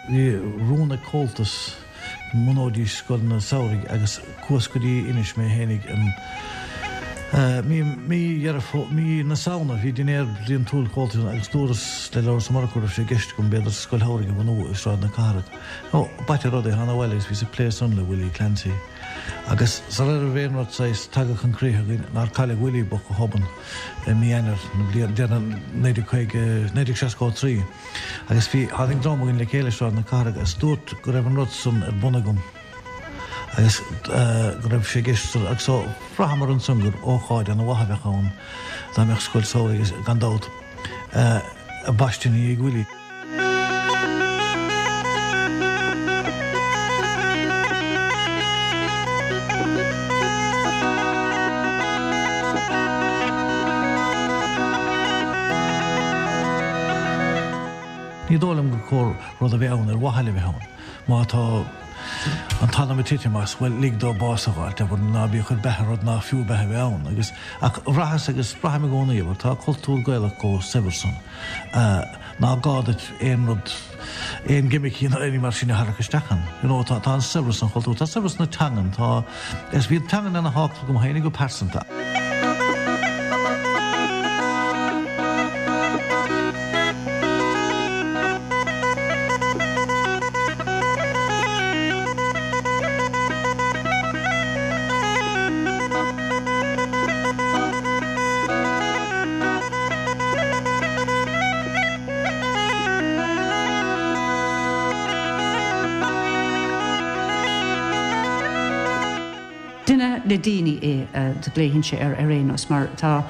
Bhí rún ag Comhaltas go mbunóidís scoileanna samhraidh agus chuas go dtí Inis mé fhéinig in mí mí Dheireadh Fó mí na Samhna. Bhí dinnéar bliantúil Chomhaltais ann agus dúras le Labhrás Ó Murchú go raibh sé i gceist agam b'fhéidir scoil shamhraidh a bhunú i Sráid na Cathrach. Ó, b'ait an rud é, thána abhaile agus bhíos ag plé san le Willie Clancy. Agus sara raibh aon rud saghas tagtha chun críche againn nár cailleadh Willie bocht go hobann i mí Eanáir na bliana deireanach 1950, 1963. Agus bhí, tháinig dream againn le chéile i Sráid na Cathrach agus dúrt go raibh an rud san ar bun agam agus go raibh sé i gceist agus so bhraitheamar ansan gur ócáid ana mhaith a bheadh ann dá mbeadh scoil samhraidh agus gan dabht baiste ina dhiaidh Willie. Ní dóigh liom gur cóir rud a bheith ann ar mhaithe le bheith ann. Má tá an t-anam ag titim as, bhuel, lig dó bás a fháilt, abair, ná bí ag cur beatha ar rud nach fiú beatha a bheith ann. Agus, ach bhraitheas agus braithim i gcónaí, abair, tá cultúr Gaelach chomh saibhir san, ná gá duit aon rud, aon ghimicí ná aon ní mar sin a tharrac isteach ann. You know, tá, tá an saibhreas an chultúir, tá saibhreas na teangan, tá, agus bhí an teangan ana thábhachtach dom féinig go pearsanta. Duine le daoine é, do ghlaofainn air ar aon nós, mar tá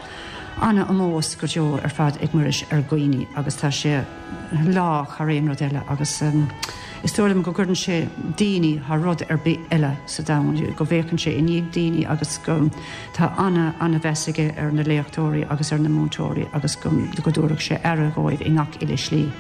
ana-omós go deo ar fad ag Muiris ar dhaoine agus tá sé lách thar aon rud eile agus is dóigh liom go gcuireann sé daoine thar rud ar bith eile sa domhan, go bhféachann sé i ndiaidh daoine agus go tá ana ana-mheas aige ar na léachtóirí agus ar na múinteoirí agus go go dtabharfadh sé aire dhóibh i ngach uile slí.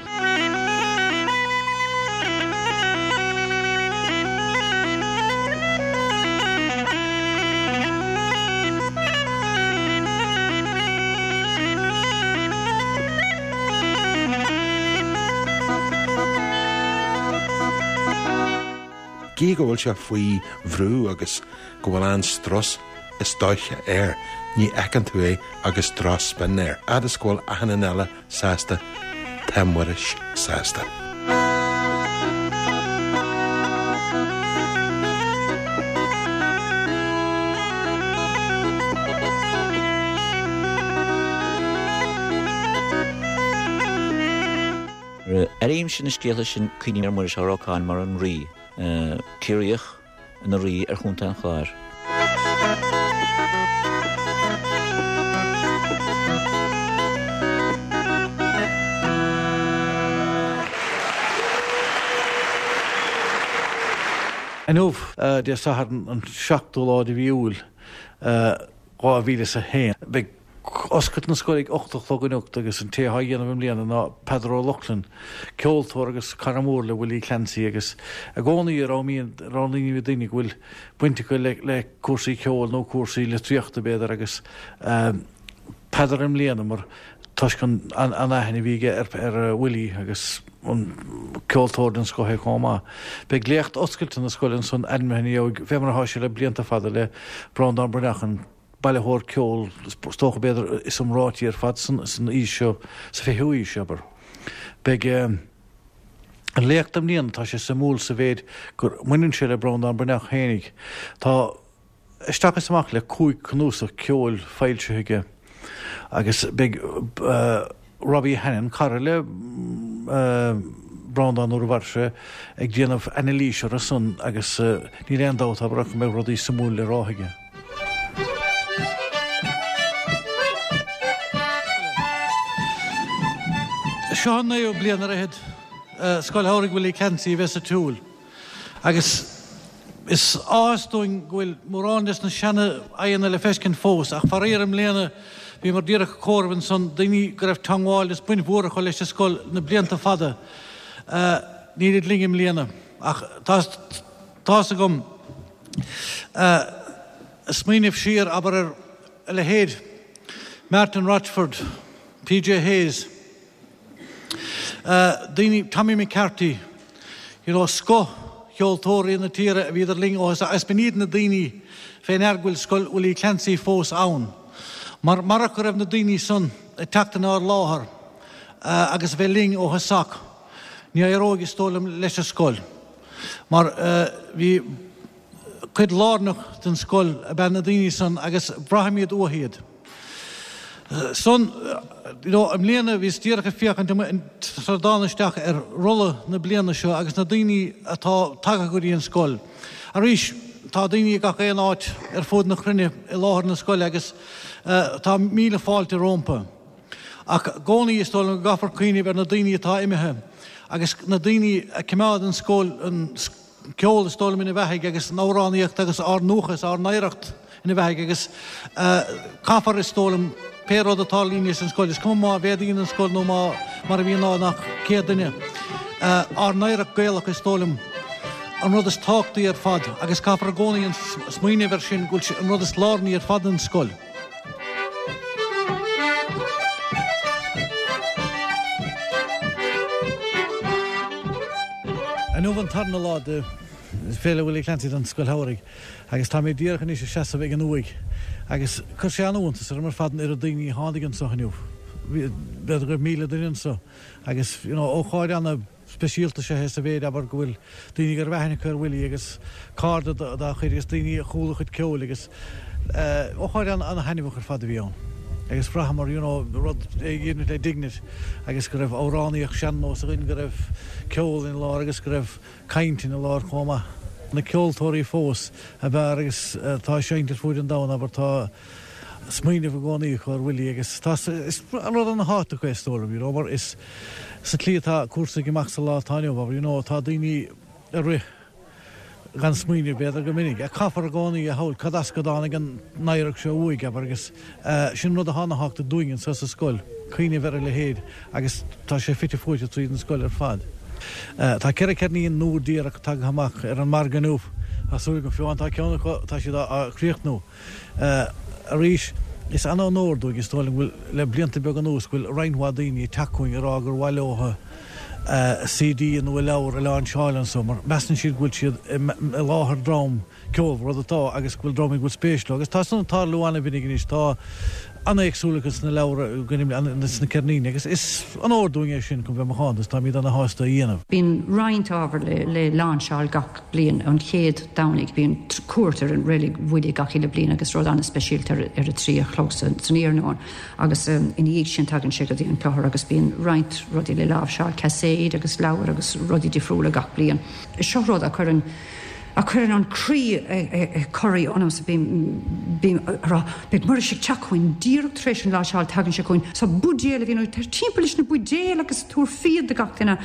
Gidh go bhfuil sé faoi bhrú agus go bhfuil an-strus is dóiche air, ní fheiceann tú é agus drochspin air. Fhad is go bhfuil achan duine eile sásta, tá Muiris sásta. Nuair a airímse na scéalta sin cuimhním ar Mhuiris Ó Rocáin mar an Rí, Ciarraíoch ina Rí ar Chontae an Chláir. Inniu, Dé Sathairn an 7ú lá de mhí Iúil 2001, beidh oscailt na scoile ag 8 a chlog anocht agus an té atá á dhéanamh i mbliana ná Peadar Ó Lochlainn, ceoltóir agus cara mór le Willie Clancy agus i gcónaí roghnaímid daoine go bhfuil baint acu le cúrsaí ceoil nó cúrsaí litríochta b'fhéidir agus Peadar i mbliana mar toisc an aithne a bhí aige ar Willie agus an ceoltóir den scoth é chomh maith. Beidh léacht oscailte na scoile ansan ainmnithe ina dhiaidh fé mar atá sé le blianta fada le Breandán Breathnach an bailitheoir ceoil is dócha b'fhéidir is iomráití ar fad san aois seo, sa fichiú haois, abair. Beidh an léacht i mbliana, tá sé suimiúil sa mhéid gur mbaineann sé le Breandán Breathnach fhéinig. Tá isteach is amach le 5 cnuasach ceoil foilsithe aige agus beidh Robbie Hannan, cara le Breandán nuair a mhair sé, ag déanamh anailís orthu san agus níl aon dabht abair ach go mbeidh rudaí suimiúil le rá aige. Seo an naoú bliain ar fhichead Scoil Shamhraidh Willie Clancy a bheith sa tsiúl. Agus is áthas dúinn go bhfuil mórán des na seana-aghaidheanna le feiscint fós, ach faraor i mbliana bhíomar díreach ag comhaireamh ansan, daoine go raibh teangmháil is baint mhór acu leis an scoil na blianta fada, nílid linn i mbliana. Ach tá's agam, smaoineamh siar, abair, ar a leithéid Martin Rochford, PJ Hayes, daoine, Tommy McCarthy. You know, scoth cheoltóirí na tíre a bhíodar linn ó thosach agus b'in iad na daoine fé ndear go bhfuil Scoil Willie Clancy fós ann. Mar marach go raibh na daoine san ag teacht inár láthair agus a bheith linn ó thosach, ní éireoidh, is dóigh liom, leis an scoil. Mar bhí cuid lárnach den scoil ab ea na daoine san agus braithimid uathu iad. San, you know, i mbliana bhíos díreach ag féachaint sar a dtána isteach ar rolla na bliana seo agus na daoine atá tagtha go dtí an scoil. Arís, tá daoine i gach aon áit ar fud na cruinne i láthair na scoile agus tá míle fáilte rómpa. Ach i gcónaí is dóigh liom go gcaithfear cuimhneamh ar na daoine atá imithe agus na daoine a choimeád an scoil, an ceol is dóigh liom ina bheathaidh agus an amhránaíocht agus ár ndúchas, ár n-oidhreacht ina bheathaidh agus caithfear is dóigh liom pé rud a tarlaíonn san scoil, is cuma má mhéadaíonn an scoil nó má mar a bhíonn ná nach 100 duine, ár n-oidhreacht Gaelach is dóigh liom an rud is tábhachtaí ar fad agus caithfear i gcónaí an smaoineamh air sin go bhfuil sé an rud is lárnaí ar fad an scoil. Inniu an tarna lá de Féile Willie Clancy don Scoil Shamhraidh agus tá mé díreach anois ag seasamh ag an uaigh agus chuir sé an-iontas orm ar fad an oiread daoine a tháinig anseo inniu. B'fhéidir go raibh 1,000 duine anseo agus you know ócáid ana speisialta is ea é sa mhéid, abair, go bhfuil daoine go raibh aithne acu ar Willie agus cairde dá chuid agus daoine a chuala a chuid ceoil agus ócáid an-thaitneamhach ar fad a bhí ann. Agus bhraitheamar, you know, rud a dhéanamh le dignity agus go raibh amhránaíocht sean-nós againn, go raibh ceol ina lár agus go raibh caint ina lár chomh maith. Na ceoltóirí fós ab fhearr agus atá ag seinnt ar fuaid an domhain, abair, tá smaoineamh i gcónaí acu ar Willie agus tá, is rud ana-thábhachtach é is dóigh liom, you know, mar is sa tslí atá cúrsaí ag imeacht sa lá atá inniu, abair, you know, tá daoine ag rith gan smaoineamh b'fhéidir go minic, ach caithfear i gcónaí a shamhail cad as go dtáinig an oidhreacht seo uaidh, abair, agus sin rud atá ana-thábhachtach dúinn anseo sa scoil, cuimhneamh ar a leithéid agus tá sé fite fuaite tríd an scoil ar fad. Tá 4 ceirnín nua díreach tagtha amach ar an margadh inniu, tá súil agam, fiú amháin tá ceann acu, tá siad á chríochnú. Arís, is an-onóir dúinn, is dóigh liom, go bhfuil, le blianta beaga anuas, go bhfuil roinnt mhaith daoine ag teacht chugainn ag rá gur mhaith leo CD nó a leabhar a láinseáil anso, mar measann siad go bhfuil siad i láthair dream ceolmhar, rud atá, agus go bhfuil dream go bhfuil spéis leo. Agus tá san ag tarlú an-mhinic anois, tá an-éagsúlacht sna leabhra, sna ceirníní, agus is onóir dúinn é sin, chun bheith macánta, is táimid ana-shásta a dhéanamh. Bíonn roinnt ábhar le láinseáil gach. bliain. An chéad Domhnaigh bíonn cuairt ar an reilig Willie gach uile bliain agus rud an-speisialta ar a 3 a chlog san iarnóin agus ina dhiaidh sin tagann sé go dtí an clochar agus bíonn roinnt rudaí le láimhseáil, caiséid agus leabhair agus rudaí difriúla gach bliain. Seo rud a chuireann a chuireann an croí ag corraí ionamsa, bím bím ag rá beidh Muiris ag teacht chugainn díreach tar éis an láimhseáil tagann sé chugainn so buidéal a bhíonn ag timpeall leis na buidéil agus tabhair fíon do gach duine.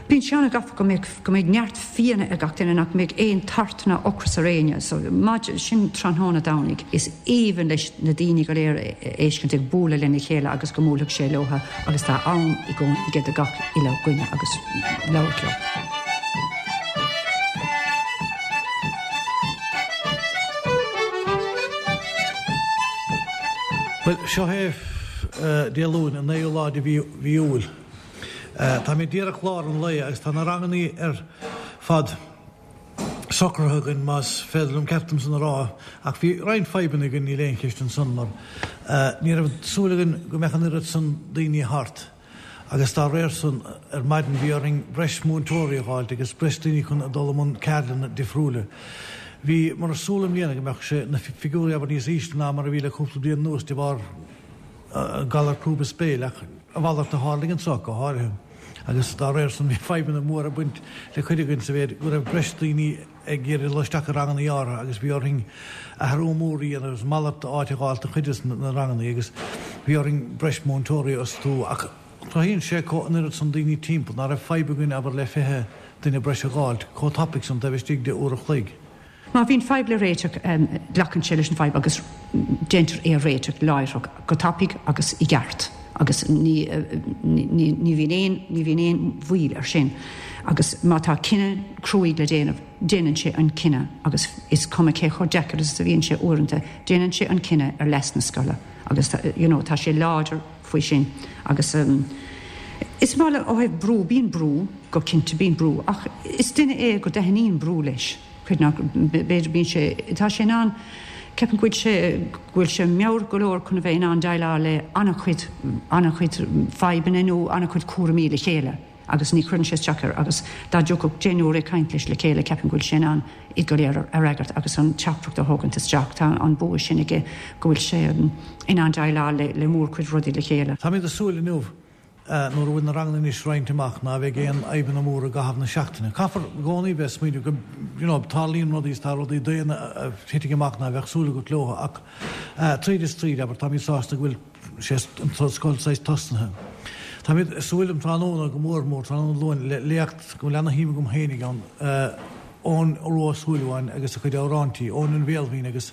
Bíonn sé an-ghafa go mbeadh go mbeidh neart fíona ag gach duine, nach mbeidh aon tart ná ocras ar éinne. So, maidin, sin tráthnóna Domhnaigh. Is aoibhinn leis na daoine go léir a fheiscint ag bualadh lena chéile agus go mbuailfeadh sé leotha agus tá am i gcónaí aige do gach uile dhuine agus labhairt leo. Bhuel, seo é Dé Luain, an naoú lá de mhí Iúil. Táimid díreach lár an lae agus tá na rangannaí ar fad socraithe againn, más féidir liom ceart dom san a rá, ach bhí roinnt fadhbanna againn, níl aon cheist ansan, mar ní raibh súil againn go mbeadh an oiread san daoine thart agus dá réir san ar maidin bhí orainn breis múinteoirí a dh'fháilt agus breis daoine chun a dul i mbun ceardlanna difriúla. Bhíomar ag súil i mbliana go mbeadh sé, na figiúirí abair níos ísle ná mar a bhí le cúpla bliain anuas de bharr galar crúb is béil, ach a mhalairt a tharlaigh anso go háirithe, agus dá réir san bhí fadhbanna móra ag baint le cuid againn sa mhéid go raibh breis daoine ag iarraidh dul isteach i rangannaí áirithe agus bhí orainn athrú mór a dhéanamh agus malairt áit a dh'fháilt do chuid de na rangannaí agus bhí orainn breis múinteoirí a fhostú ach cruthaíonn sé chomh an oiread san daoine timpeall ná raibh fadhb againn abair le 20 duine breis a dh'fháilt chomh tapaidh san taobh istigh de uair a chloig. Má bhíonn fadhb le réiteach, glacann sé leis an bhfadhb agus déantar é a réiteach láithreach, go tapaidh agus i gceart agus ní ní bhíonn aon ní bhíonn aon mhoill air sin. Agus má tá cinneadh cruaidh le déanamh, déanann sé an cinneadh agus is cuma cé chomh deacair is a bhíonn sé uaireanta, déanann sé an cinneadh ar leas na scoile agus you know tá sé láidir faoi sin agus. Is maith liom, ó thaobh brú, bíonn brú, go cinnte bíonn brú, ach is duine é go dtaitníonn brú leis, creid nó b'fhéidir bíonn sé, tá sé in ann, ceapaim go bhfuil sé, go bhfuil sé meabhrach go leor chun a bheith in ann déileáil le an-chuid, an-chuid fadhbanna nó an-chuid cúraimí le chéile agus ní chuireann sé isteach air agus dá dtiocfadh deichniúr ag caint leis le chéile ceapaim go bhfuil sé in ann iad go léir a fhreagairt agus an teachtaireacht a thógaint isteach. Tá an bua sin aige go bhfuil sé in ann déileáil le mórchuid rudaí le chéile. Táimid ag súil inniu nuair a bhfuil na ranganna anois roinnte amach ná bheidh aon fhadhbanna móra i gcaitheamh na seachtaine. Caithfear i gcónaí bheith ag smaoineamh go you know tarlaíonn rudaí is tá rudaí daonna a thitfidh amach ná bheadh súil agat leo ach tríd is tríd abair táimid sásta go bhfuil sé an scoil saghas tosnaithe. Táimid ag súil um tráthnóna go mór mór tráthnóna Luain le léacht go bhfuil ana-shuim agam féinig ann Eoin Rua Ó Súilleabháin agus a chuid amhráintí, Eoin an Bhéal Bhinn agus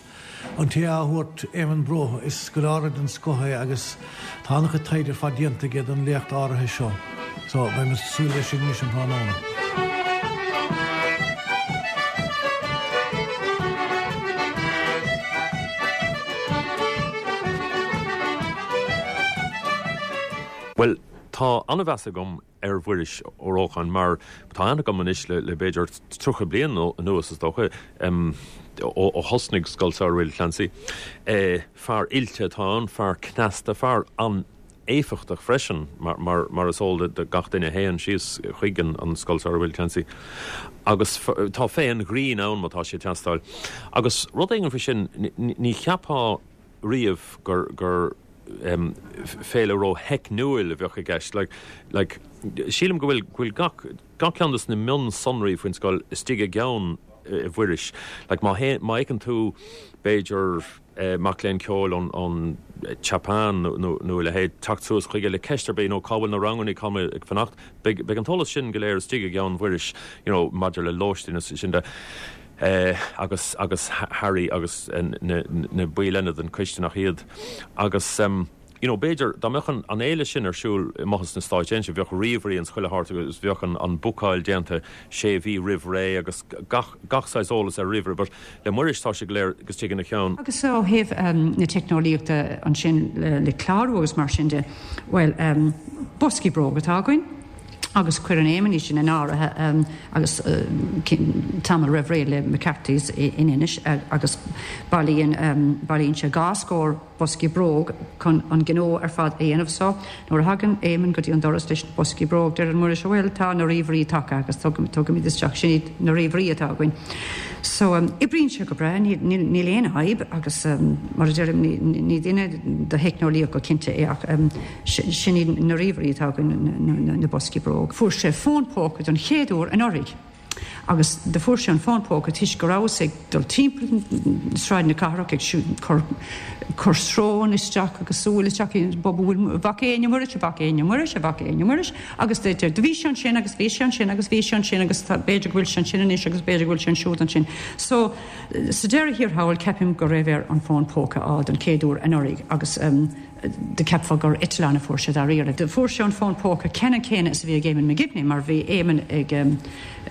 An té á thabhairt, Éamonn Bróithe, is scoláire den scoth é agus tá an-chuid taighde ar fad déanta aige don léacht áirithe seo. So, beidh muid ag súil leis sin anois um thráthnóna. Bhuel, tá an-mheas agam ar Mhuiris Ó Rócháin mar tá aithne agam anois le b'fhéidir 30 bliain anuas is dócha, ó thosnaigh Scoil Samhraidh Willie Clancy. Fear oilte atá ann, fear cneasta, fear an-éifeachtach freisin mar is eol do gach duine a théann síos chuig an Scoil Samhraidh Willie Clancy. Agus tá féith an ghrinn ann má tá sé ag teastáil. Agus rud éigin faoi sin, ní cheapfá riamh gur féile ró-theicniúil a bheadh i gceist. Like, sílim go bhfuil, go bhfuil gach, gach ceann de na mionsonraí faoin scoil istigh i gceann Mhuiris. Like, má théann, má fheiceann tú, b'fhéidir, mac léinn ceoil ón, ón tSeapáin nó, nó a leithéid, teacht suas chuige le ceist ar bith, nó cá bhfuil na ranganna, cá bhfuil mé ag fanacht, beidh, beidh an t-eolas sin go léir istigh i gceann Mhuiris, you know, maidir le lóistín is sin de. agus agus Harry agus na na baill eile den choiste nach iad agus you know b'fhéidir dá mbeadh an an fhéile sin ar siúl amuigh sna Stáit Aontaithe bheadh ríomhairí ins chuile háit agus bheadh an an bookáil déanta sé mhí roimh ré agus gach gach saghas eolas ar ríomhaire but le Muiris tá sé go léir istigh ina cheann. Agus ó thaobh na teicneolaíochta ansin le clárú agus mar sin de, bhuel, boscaí bróg atá againn. agus cuireann Éamonn iad sin in áirithe agus tamall roimh ré le McCarthy's in Inis agus bailíonn bailíonn sé dhá scór boscaí bróg chun an gnó ar fad a dhéanamh. So nuair a thagann Éamonn go dtí an doras leis na boscaí bróg deireann Muiris bhuel tá na ríomhairí tagtha agus tugaimid isteach sin iad na ríomhairí atá againn. So oibríonn sé go breá níl níl aon fhadhb agus mar a deirim ní duine do theicneolaíocht go cinnte é ach Sin iad na ríomhairí atá againn, na boscaí bróg. Fuair sé fón póca don chéad uair anuraidh agus do fuair sé an fón póca toisc go rabhas ag dul timpeall Sráid na Cathrach ag cur cur srón isteach agus súil isteach i bhfuil bhfaca éinne Muiris, a bhfaca éinne Muiris, a bhfaca éinne Muiris agus do bhí sé ansin agus bhí sé ansin agus bhí sé ansin agus tá b'fhéidir go bhfuil sé ansin anois agus b'fhéidir go bhfuil sé ansiúd ansin. So sa deireadh thiar thall ceapaim go raibh air an fón póca a fháil don chéad uair anuraidh agus Do cheapfá gur eitleán a fuair sé dáiríre. Do fuair sé an fón póca ceannann céanna is a bhí ag Éamonn McGibney mar bhí Éamonn ag,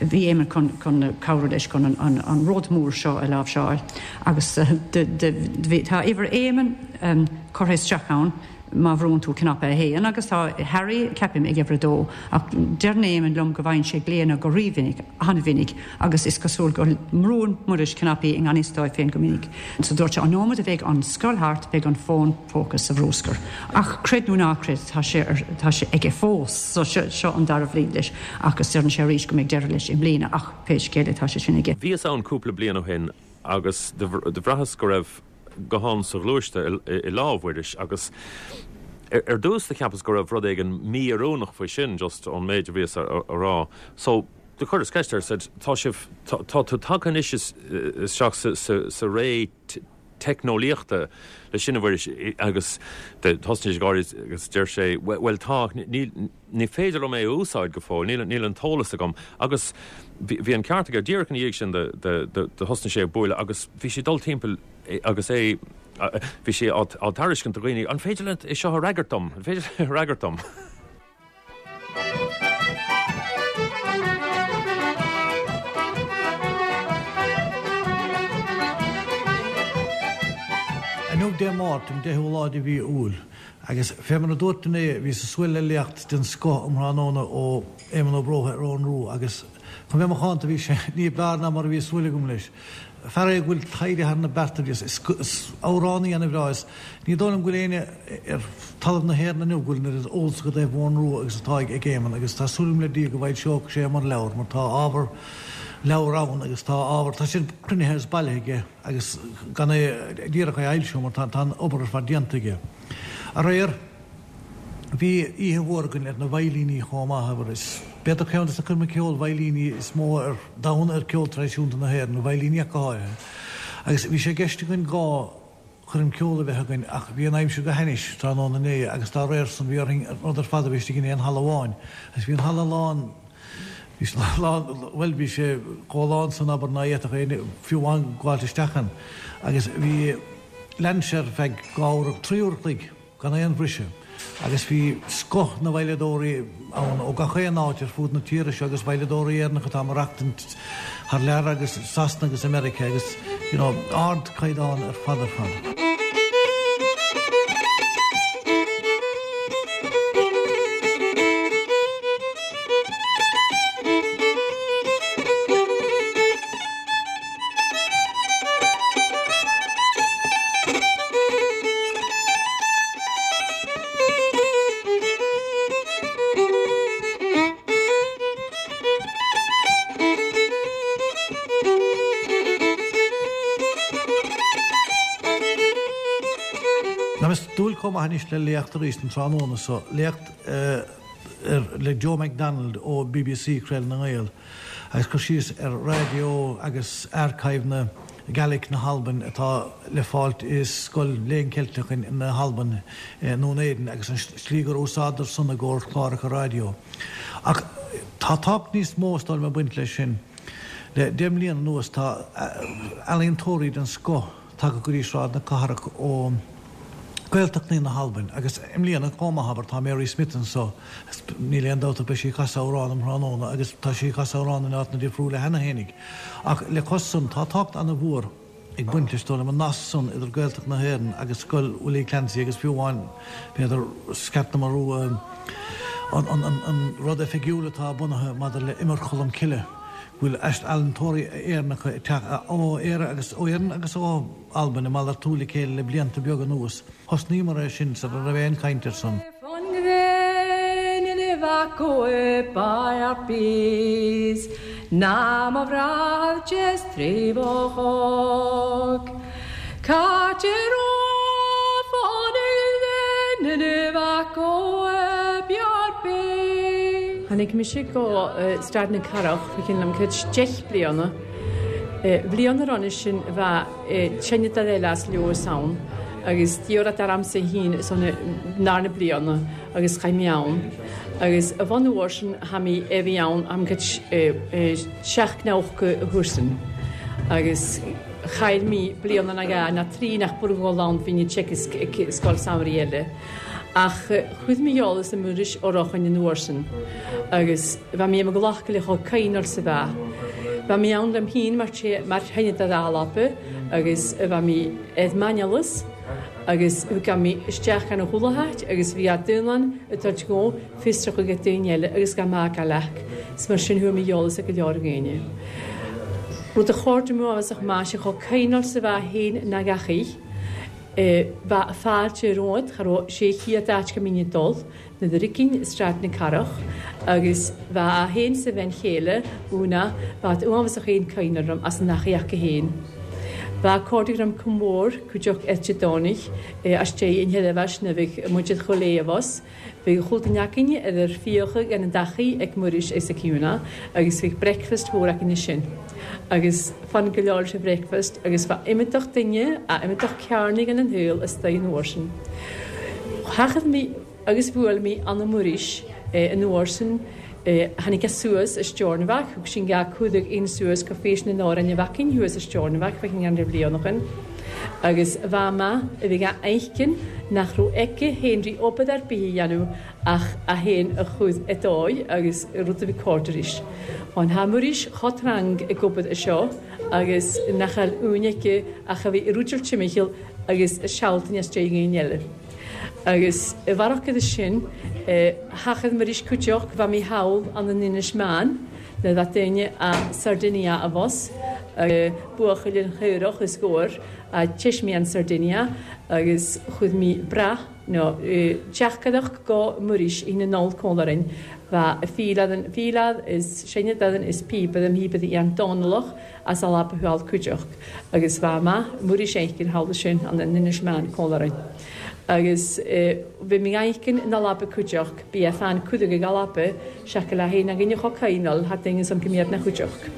bhí Éamonn chun, chun cabhrú leis chun an, an, an rud mór seo a láimhseáil agus do, do, bhí, tá uimhir Éamonn curtha isteach ann má bhrúnn tú cnaipe a haon agus tá Harry, ceapaim, ag uimhir a dó ach deireann Éamonn liom go bhfaigheann sé glaonna go rímhinic, an-mhinic agus is cosúil go mbrúann Muiris cnaipí i ngan fhios dóibh féin go minic. So dúirt sé, an nóiméad a bheidh an scoil thart, beidh an fón póca sa bhrúscar. Ach creid nó ná creid, tá sé ar, tá sé aige fós. So seo, seo an dara bhliain leis agus deireann sé arís go mbeidh deireadh leis i mbliana ach pé scéal é tá sé sin aige. Bhíos ann cúpla bliain ó shin agus do bhraitheas go raibh guthán sa ghluaiste i lámh Mhuiris agus ar dtús do cheapas go raibh rud éigin mí-oiriúnach faoi sin just ón méid a bhíos a rá. So do chuireas ceist air, said tá sibh, tá tú tagtha anois isteach sa ré teicneolaíochta leis sin a Mhuiris agus thosnaigh sé ag gáirí agus deir sé bhuel tá, níl, ní féidir liom é a úsáid go fóill, níl, níl an t-eolas agam. Agus bhí an ceart aige, díreach ina dhiaidh sin do thosnaigh sé ag bualadh agus bhí sé ag dul timpeall agus é, bhí sé á tairiscint do dhaoine, an féidir leat é seo a fhreagairt dom, an féidir leat é a fhreagairt dom? Inniu Dé Máirt, an 10ú lá de mhí Iúil. Agus fé mar a dúirt inné, bhíos ag súil le léacht den scoth um thráthnóna ó Éamonn Ó Bróithe ar Eoghan Rua agus chun bheith macánta bhí sé ní b'fhearr ná mar a bhí súil agam leis. Fear é go bhfuil taighde thar na bearta aige, is amhránaí ana-bhreá é. Ní dóigh liom go bhfuil éinne ar talamh na hÉireann inniu go bhfuil an oiread eolas i dtaobh Eoghan Rua agus atá ag Éamonn agus tá súil agam le Dia go bhfoilseoidh sé mar leabhar mar tá ábhar leabhar ann agus tá ábhar, tá sin cruinnithe agus bailithe aige agus gan é díreach é a fhoilsiú mar tá an obair ar fad déanta aige. Aréir. Bhí oíche mhór againn ar na veidhlíní chomh maith, abair. Is b'fhéidir ceann de na coirmeacha ceoil veidhlíní is mó ar domhan ar ceol traidisiúnta na hÉireann, na veidhlíní ach go háirithe. Agus bhí sé i gceist againn 2 choirm ceoil a bheith againn ach bhí an aimsir go hainnis tráthnóna inné agus dá réir san bhí orainn an rud ar fad a bheith istigh in aon halla amháin. Agus bhí an halla lán, bhí sé lán, bhuel bhí sé chomh lán san abair ná fhéadfadh éinne fiú amháin gabháilt isteach ann. Agus bhí, lean sé ar feadh 2 uair, 3 uair a chloig. gan aon bhriseadh, agus bhí scoth na veidhleadóirí ann ó gach aon áit ar fud na tíre seo agus veidhleadóirí Éireannacha atá ag maireachtaint thar lear agus Sasana agus i Meiriceá agus you know ardchaighdeán ar fad ar fad. Táim ag dúil chomh maith anois le léacht arís an tráthnóna so, léacht le Joe McDonald ó bbc, Craoladh na nGael. Agus cur síos ar raidió agus archive na Gaelic na hAlbain atá le fáilt i Scoil Léann Ceilteach na hAlban i nDún Éideann agus an slí gur úsáideadar san i gcomhair cláracha raidió. Ach tá tábhacht níos mó is dóigh liom ag baint leis sin. Le 10 mbliana anuas tá ealaíontóirí den scoth tagtha go dtí Sráid na Cathrach ó Gaeltachtaí na hAlbain agus i mbliana chomh maith, abair, tá Mary Smith anso, níl aon dabht ach beidh sí ag casadh amhrán um thráthnóna agus tá sí ag casadh amhrán in áiteanna difriúla cheana fhéinig. Ach le cois san, tá tábhacht ana-mhór ag baint leis, dóigh liom, an nasc san idir Gaeltacht na hÉireann agus Scoil Willie Clancy agus fiú amháin, b'fhéidir, Sceat na Marú, an rud oifigiúil atá bunaithe maidir le Iomar Cholm Cille, go bhfuil ealaíontóirí Éireannacha ag teacht ó Éire agus ó Éirinn agus ó Albain ag malartú le chéile le blianta beaga anuas. Thosnaíomar é sin sara raibh aon chaint air san. Tháinig mise go Staid na Cathrach fá chionn liom cuid 10 bliana. Bhliain roimhe sin bheadh tine de eile as Leodhas ann agus d'iarr ormsa féin is ann ndar na bliana agus chaith mé ann agus a bhun uair sin tha mé a bhí ann am cuid 790 a thuarsan agus chaill mé bliana ná dhá ná trí nach bhfuair dhul ann bhí ní teic scoil samhraidh eile. Ach chuir mé eolas ar Mhuiris Ó Rocháin an uair sin agus bheadh mé i mo ghlacadh le chomh caoin sa bheath. Bheadh mé ann liom féin mar mar thine de dhalapa agus bheadh mé ar m'aineolas agus thug mé isteach gan a chuala háit agus bhí a daonlann ag dul go fiosrach ag daoine eile agus gan mé ag leac. Is mar sin chuir mé eolas ag go leor dhaoine. Rud a chóir dom a bheadh maith sé chomh caoin sa bheath féin ná gach oích. Bheadh fáilte romhat, cha raibh sé chéad áit go mbínn ag dul, na Doiricín i Sráid na Cathrach, agus bheadh a fhéin 's a bhean chéile, Úna, bheadh uathbhasach aon cuimhne orm as an achaíocht go fhéin. Bheadh cairde orm chomh mór, cuideachta Eite Domhnaigh, as deireadh an sheirbheis na bheadh muid ar chuile abhus. Bhí chuile duine againne idir fiacha gan an dtaithí ag Muiris is ag Úna agus bhíodh breakfast mhór againne sin agus fan go leor leis an bhreakfast agus bheadh iomadach duine a iomadach cearnaigh gan an shaol istigh an uair sin. Thachaidh mé agus bhuail mé Anna Muiris an uair sin tháinig sé suas i Steornabhagh, thug sin gá cumhdaigh aon suas go Feis na nAmhrán a bheadh thuas i Steornabhagh, bheadh an bhliain ó shin. Agus bha maith a bhí dhá fheiscin nach raibh aici féin rí obair ar bith a dhéanamh ach a féin a chur i dóigh agus rud a bhí cóir arís. An tha Muiris cho trang ag obair anseo agus nach eil uain aici ach a bhí i rúideal timcheall agus i sealtainn as deireadh aon eile. Agus i bhfarraige sin, thachaidh Muiris cuideachd bha mi thall ann an Inis Meáin le bheith daoine a Sardinia a bhus, buachaill an chaorach is góir a teismi an Sardinia agus chuaidh mi brath nó teachcadach go Muiris ina nol cónlainn bha fílead fílead is seinneadad is píobad am híobad i an Dónallach as a laba thuall cuideachd agus bha maith Muiris éicin thall sin an Inis Meáin cónlainn. Agus bhí mé éicin ina laba cuideachd, bí a fan cuideadh ag a laba, seaca le haon againn a cho caoinal, thar duine san go mbíod na chuideachd.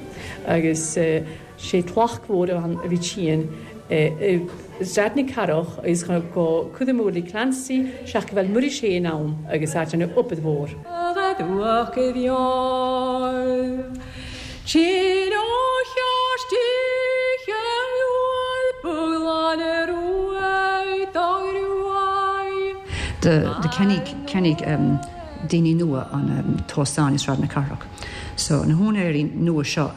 Agus sé tlacht mhór a bhí tinn i Sraid na Cathrach agus go cuideadh Willie Clancy seaca bheil Muiris fhéin ann agus áit an obair mhór. Do cheannaigh daoine nua an t-óstán i Sráid na Cathrach. So na húinéirí nua seo,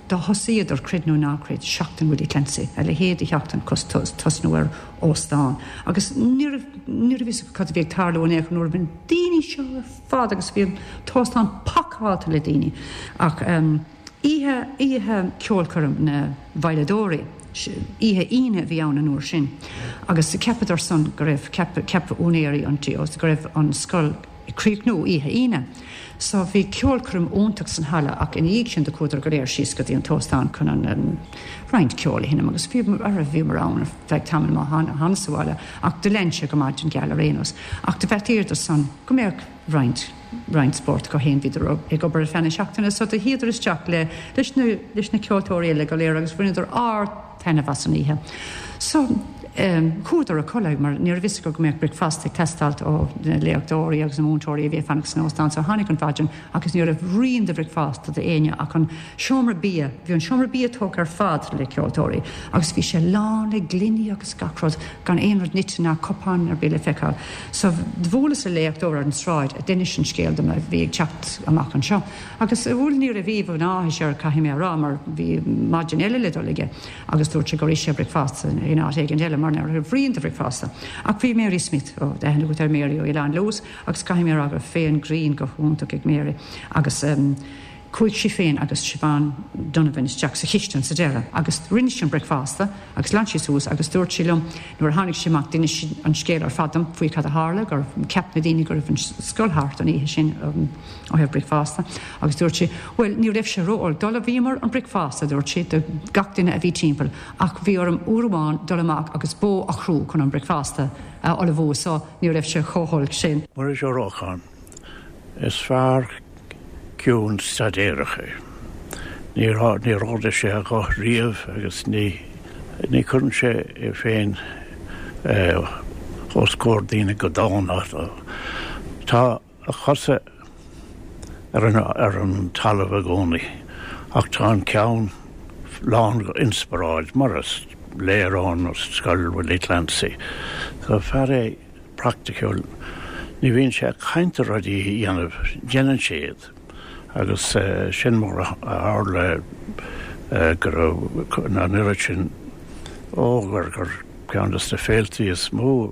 do thosaíodar, creid nó ná creid, Seachtain Willie Clancy, a leithéid de sheachtain tosnú ar óstán. Agus ní raibh, ní raibh fhios acu cad a bhí ag tarlú in aon chor nuair a bhí na daoine seo ar fad agus bhí an t-óstán pacáilte le daoine. Ach oíche, oíche ceolchoirm na veidhleadóirí, oíche Aoine a bhí ann an uair sin agus cheapadar san go raibh, cheap, cheap úinéirí an tí go raibh an scoil ag críochnú oíche Aoine. So bhí ceolchoirm iontach san halla ach ina dhiaidh sin do chuadar go léir síos go dtí an t-óstán chun an roinnt ceoil a sheinm agus bhí, bhíomar ann ar feadh tamaill má thánas sa bhaile ach do lean sé go maidin gheal ar aon nós. Ach do bheartaíodar san go mbeadh roinnt, roinnt spóirt acu féin, bhíodar ag obair ar feadh na seachtaine so do shuíodar isteach le, leis na, leis na ceoltóirí eile go léir agus bhaineadar ard-taitneamh as an oíche. So chuadar a codladh mar ní raibh fhios acu go mbeadh bricfeasta ag teastáilt ó na léachtóirí agus na múinteoirí a bhí ag fanacht san óstán so tháinig an mhaidin agus ní raibh rian de bhricfeasta d'éinne ach an seomra bia, bhí an seomra bia tógtha ar fad le ceoltóirí agus bhí sé lán le gloiní agus gach rud, gan aon rud nite ná cupán ar bith le feiceáil. So bhuaileas le léachtóir ar an tsráid a d'inis an scéal dom a bhí ag teacht amach anseo agus bhuel ní raibh aoibh an áthais air caithfidh mé a rá mar bhí maidin eile le dul aige agus dúirt sé gur ith sé bricfeasta in áit éigin eile mar ní raibh rian de bhricfeasta. Ach bhí Mary Smith, ó tá aithne agat ar Mary ó Oileán Lewis, Agus caithfidh mé a rá go raibh féith an ghrinn go hiontach ag Mary agus chuaigh sí féin agus Siobhán Donovan isteach sa chistin sa deireadh agus rinne sí an bricfeasta agus ghlan sí suas agus dúirt sí liom nuair a tháinig sí amach d'inis sí an scéal ar fad dom faoi cad a tharla gur cheap na daoine go raibh an scoil thart an oíche sin ó thaobh bricfeasta agus dúirt sí bhuel ní raibh sé ró-olc d'ullmhaíomar an bricfeasta dúirt sí do gach duine a bhí timpeall ach bhí orm uair amháin dul amach agus bó a chrú chun an bricfeasta a ullmhú so Ní raibh sé chomh holc sin. Muiris Ó Rocháin, Is fear ciúin staidéarach é. Níor níor ardaigh sé a ghuth riamh agus ní ní chuireann sé é féin os comhair daoine go dána. Tá a chosa ar an ar an talamh i gcónaí ach tá an ceann lán d'inspioráid, mar is léir ón scoil Willie Clancy. So fear é praiticiúil, ní bhíonn sé ag caint ar rudaí a dhéanamh, déanann sé iad agus sin mar a tharla go raibh an oiread sin ó gur gur ceann de na féiltí is mó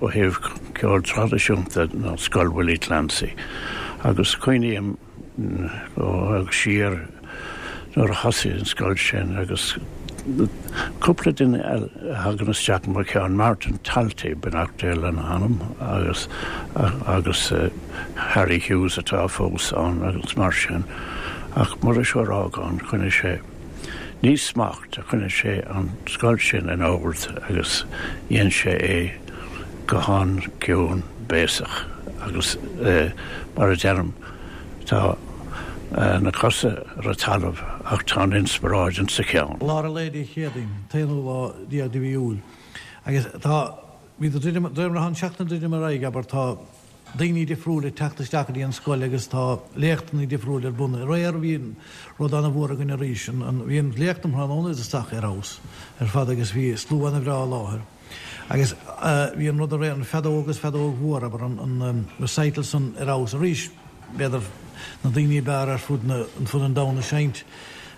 ó thaobh ceol traidisiúnta ná Scoil Willie Clancy agus cuimhním siar nuair a thosaigh an scoil sin agus cúpla duine a thagann isteach i mo cheann, Martin Talty, beannacht Dé lena anam, agus agus Harry Hughes atá fós ann agus mar sin ach Muiris Ó Rágáin, choinnigh sé. Ní smacht a choinnigh sé an scoil sin in ord agus dhein sé é go han-chiúin béasach agus mar a deirim tá na cosa ar an talamh ach tá an inspioráid insa cheann. Lár an lae Dé Céadaoin, an t-aonú lá déag de mhí Iúil, agus tá, bhí de réir mar atá an tseachtain ag druidim ar aghaidh, abair, tá daoine difriúil ag teacht isteach go dtí an scoil agus tá léachtanna difriúil ar bun. Aréir bhí rud ana-mhór againn arís, bhí an léacht um thráthnóna isteach ar fheabhas ar fad agus bhí slua ana-bhreá i láthair. Agus bhí an rud aréir, an feadóg agus feadóg mhór, abair, an recital san ar fheabhas arís, b'fhéidir na daoine ab fhearr ar fud an domhain ag seinnt.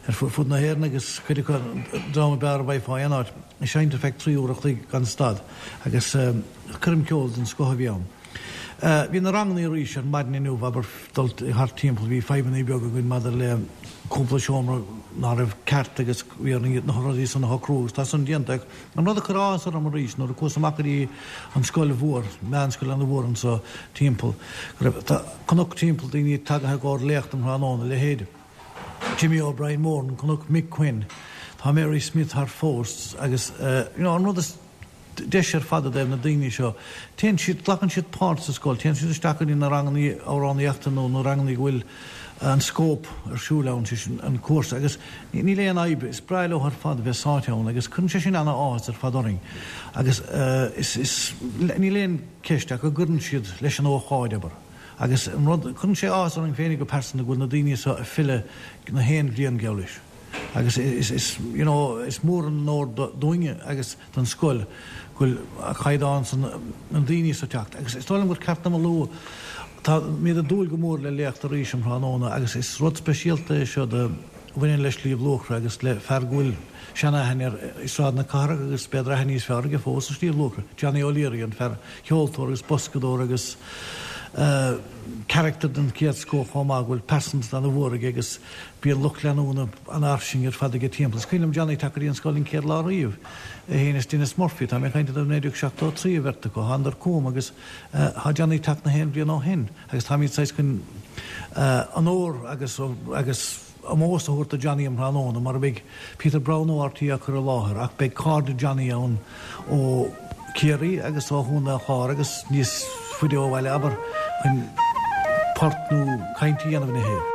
Ar fud na hÉireann agus cuid acu an dream ab fhearr a bhfaighfeá aon áit, ag seinnt ar feadh 3 uair a chloig gan stad agus coirm ceoil den scoth a bhí ann. Bhí na ranganna arís ar maidin inniu, abair, dul thart timpeall, bhí fadhbanna beaga againn maidir le cúpla seomra ná raibh ceart agus bhí orainn na rudaí san a shocrú agus tá san déanta ach an rud a chuir áthas orm arís nuair a chuas amach go dtí an scoil mhór, meánscoil ana mhór anso timpeall, go raibh, tá cnoc timpeall daoine tagaithe i gcomhair léacht um thráthnóna, leithéid. Jimmy O'Brien Moran, chonac Mick Quinn, tá Mary Smith thart fós agus you know an rud is deise ar fad i dtaobh na daoine seo, téann siad, glacann siad páirt sa scoil, téann siad isteach go dtí na ranganna amhránaíochta nó na ranganna go bhfuil an scóip ar siúl ann, sé sin an cúrsa agus níl aon fhadhb, is breá leo ar fad bheith sáite ann agus cuireann sé sin ana-áthas ar fad orainn agus is, is, níl aon ceist ach go gcuireann siad leis an ócáid, abair. Agus an rud, cuireann sé áthas orainn féinig go pearsanta go bhfuil na daoine seo ag filleadh na haon bhliain geall leis. Agus is, is, you know, is mór an onóir dúinne agus don scoil go bhfuil an caighdeán san, na daoine seo ag teacht. Agus is dóigh liom gur ceart dom a lua, táimid ag dúil go mór le léacht arís um thráthnóna agus is rud speisialta é seo do, a bhaineann le Sliabh Luachra agus le fear go bhfuil sean-aithne air i Sráid na Cathrach agus b'fhéidir aithne níos fearr aige fós i Sliabh Luachra, Johnny O'Leary, an fear ceoltóir agus boscadóir agus carachtar den chéad scoth chomh maith, go bhfuil pearsantacht ana-mhór aige agus bíonn lucht leanúna an-fhairsing ar fad aige timpeall. Is cuimhin liom Johnny teacht go dtí an scoil an chéad lá riamh, é féin is Denis Murphy, tá mé ag caint i dtaobh 1973 an bheirt acu, thánadar chugam agus tá Johnny ag teacht na haon bhliain ó shin. Agus táimid saghas chun onóir agus agus ómós a thabhairt do Johnny um thráthnóna, mar a bheidh Peter Browne ó RTÉ á cur i láthair, ach beidh cairde Johnny ann ó Chiarraí agus ó Chontae an Chláir agus níos faide ó bhaile, abair, chun port nó caint a dhéanamh ina thaobh.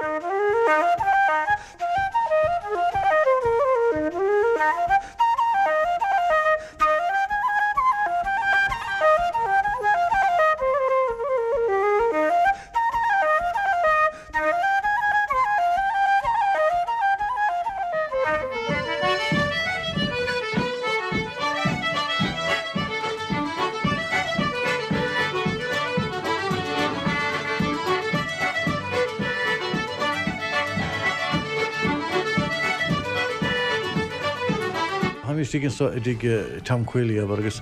Táim istigh anso i dtigh Tom Quealy, abair, agus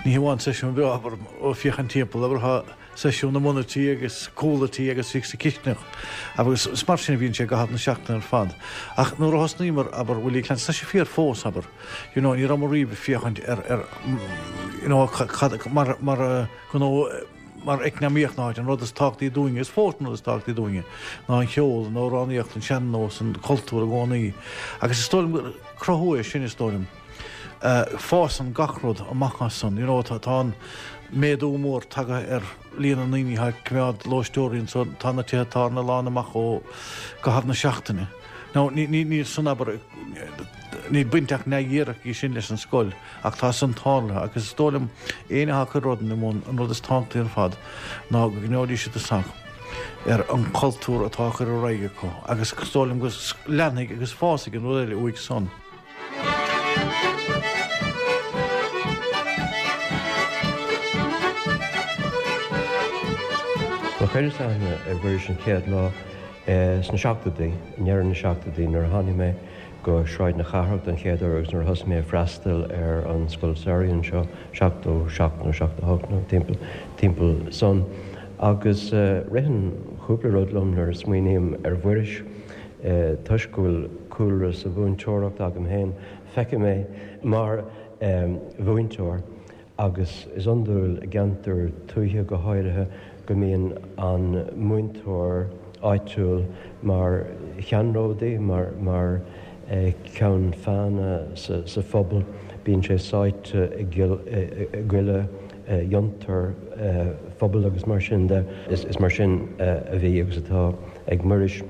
ní hamháin seisiún breá, abair, ó féachaint timpeall, abair, tá seisiún i mbun an tí agus cúl an tí agus istigh sa chisteanach agus is mar sin a bhíonn sé i gcaitheamh na seachtaine ar fad. Ach nuair a thosnaíomar, abair, Willie Clancy, tá sé fíor fós, abair, you know, ní rabhamar riamh ag féachaint ar, ar, you know, cad, mar, mar gnó, mar eacnamaíocht na háite, an rud is tábhachtaí dúinne, is fós an rud is tábhachtaí dúinne, ná an cheol, an amhránaíocht, an sean-nós, an cultúr i gcónaí. Agus is dóigh liom gur cruthú é sin, is dóigh liom. Fásann gach rud amach as san, you know, tá an méadú mór tagtha ar líon na ndaoine atá ag coimeád lóisteoirí anso, tá na tithe tábhairne lán amach i gcaitheamh na seachtaine. Now, níl san, abair, níl baint ach neamhdhíreach aige sin leis an scoil. Ach tá san tarlaithe agus is dóigh liom éinne atá ag cur rud ina mbun, an rud is tábhachtaí ar fad ná go gcoinneoidís siad a sac ar an chultúr atá á chur ar aghaidh acu agus is dóigh liom go leanfaidh agus fásfaidh an rud eile uaidh san. Bhuel chuireas aithne ar Mhuiris an chéad lá sna seachtóidí, i ndeireadh na seachtóidí nuair a tháinig mé go Sráid na Cathrach don chéad uair agus nuair a thosaigh mé ag freastal ar an scoil samhraidh anseo, 77 nó 78 nó timpeall, timpeall san. Agus ritheann cúpla rud liom nuair a smaoiním ar Mhuiris. Toisc go bhfuil cúlra sa mhúinteoireacht agam féin, feicim é mar mhúinteoir. Agus is iondúil i gceantar tuaithe go háirithe go mbíonn an múinteoir áitiúil mar cheannródaí, mar mar cheann feadhna sa phobal. Bíonn sé sáite i gcuile fhiontar phobail agus mar sin de. Is mar sin a bhí agus atá ag Muiris.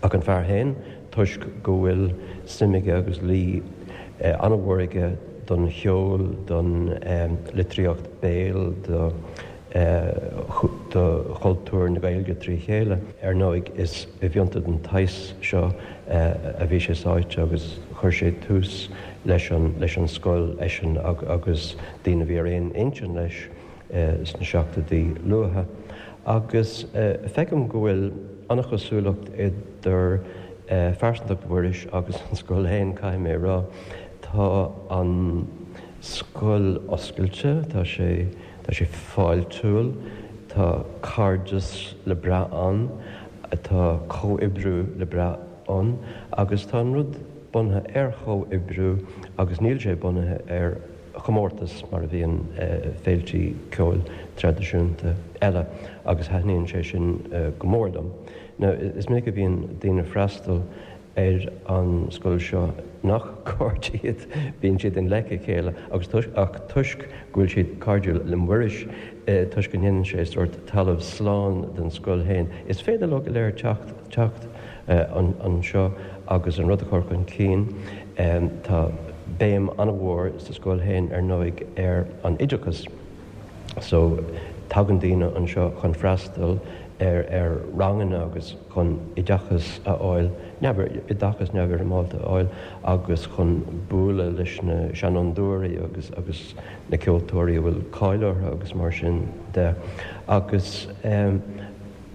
Ach an fear féin, toisc go bhfuil suim aige agus luí an-mhór aige don cheol, don litríocht béil, do chultúr na Gaeilge trí chéile. Ar ndóigh, is i bhfiontar den tsaghas seo a bhí sé sáite agus chuir sé tús leis an scoil, eisean agus daoine a bhí ar aon intinn leis. sna seachtóidí luatha, agus feicim go bhfuil an-chosúlacht idir. Phearsantacht Mhuiris agus an scoil féin, caithfidh mé a rá. Tá an scoil oscailte, tá sé, tá sé fáiltiúil, tá cairdeas le brath ann, tá comhoibriú le brath ann agus tá an rud bunaithe ar chomhoibriú agus níl sé bunaithe ar chomórtas mar a bhíonn féiltí ceoil traidisiúnta eile agus thaitníonn sé sin go mór liom. Now, is minic a bhíonn daoine ag freastal ar an scoil seo nach cairde iad, bíonn siad i ngleic a chéile agus toisc, ach toisc go bhfuil siad cairdiúil le Muiris, toisc go ndéanann sé sórt talamh slán den scoil féin, is féidir leo go léir teacht, teacht anseo agus an rud a chur chun cinn. Tá béim an-mhór sa scoil féin, ar ndóigh, ar an oideachas. So, tagann daoine anseo chun freastal ar ar ranganna agus chun oideachas a fháil, oideachas neamhfhoirmeálta a fháil agus chun bualadh leis na seanfhondúirí agus agus na ceoltóirí a bhfuil cáil orthu agus mar sin de. Agus eh.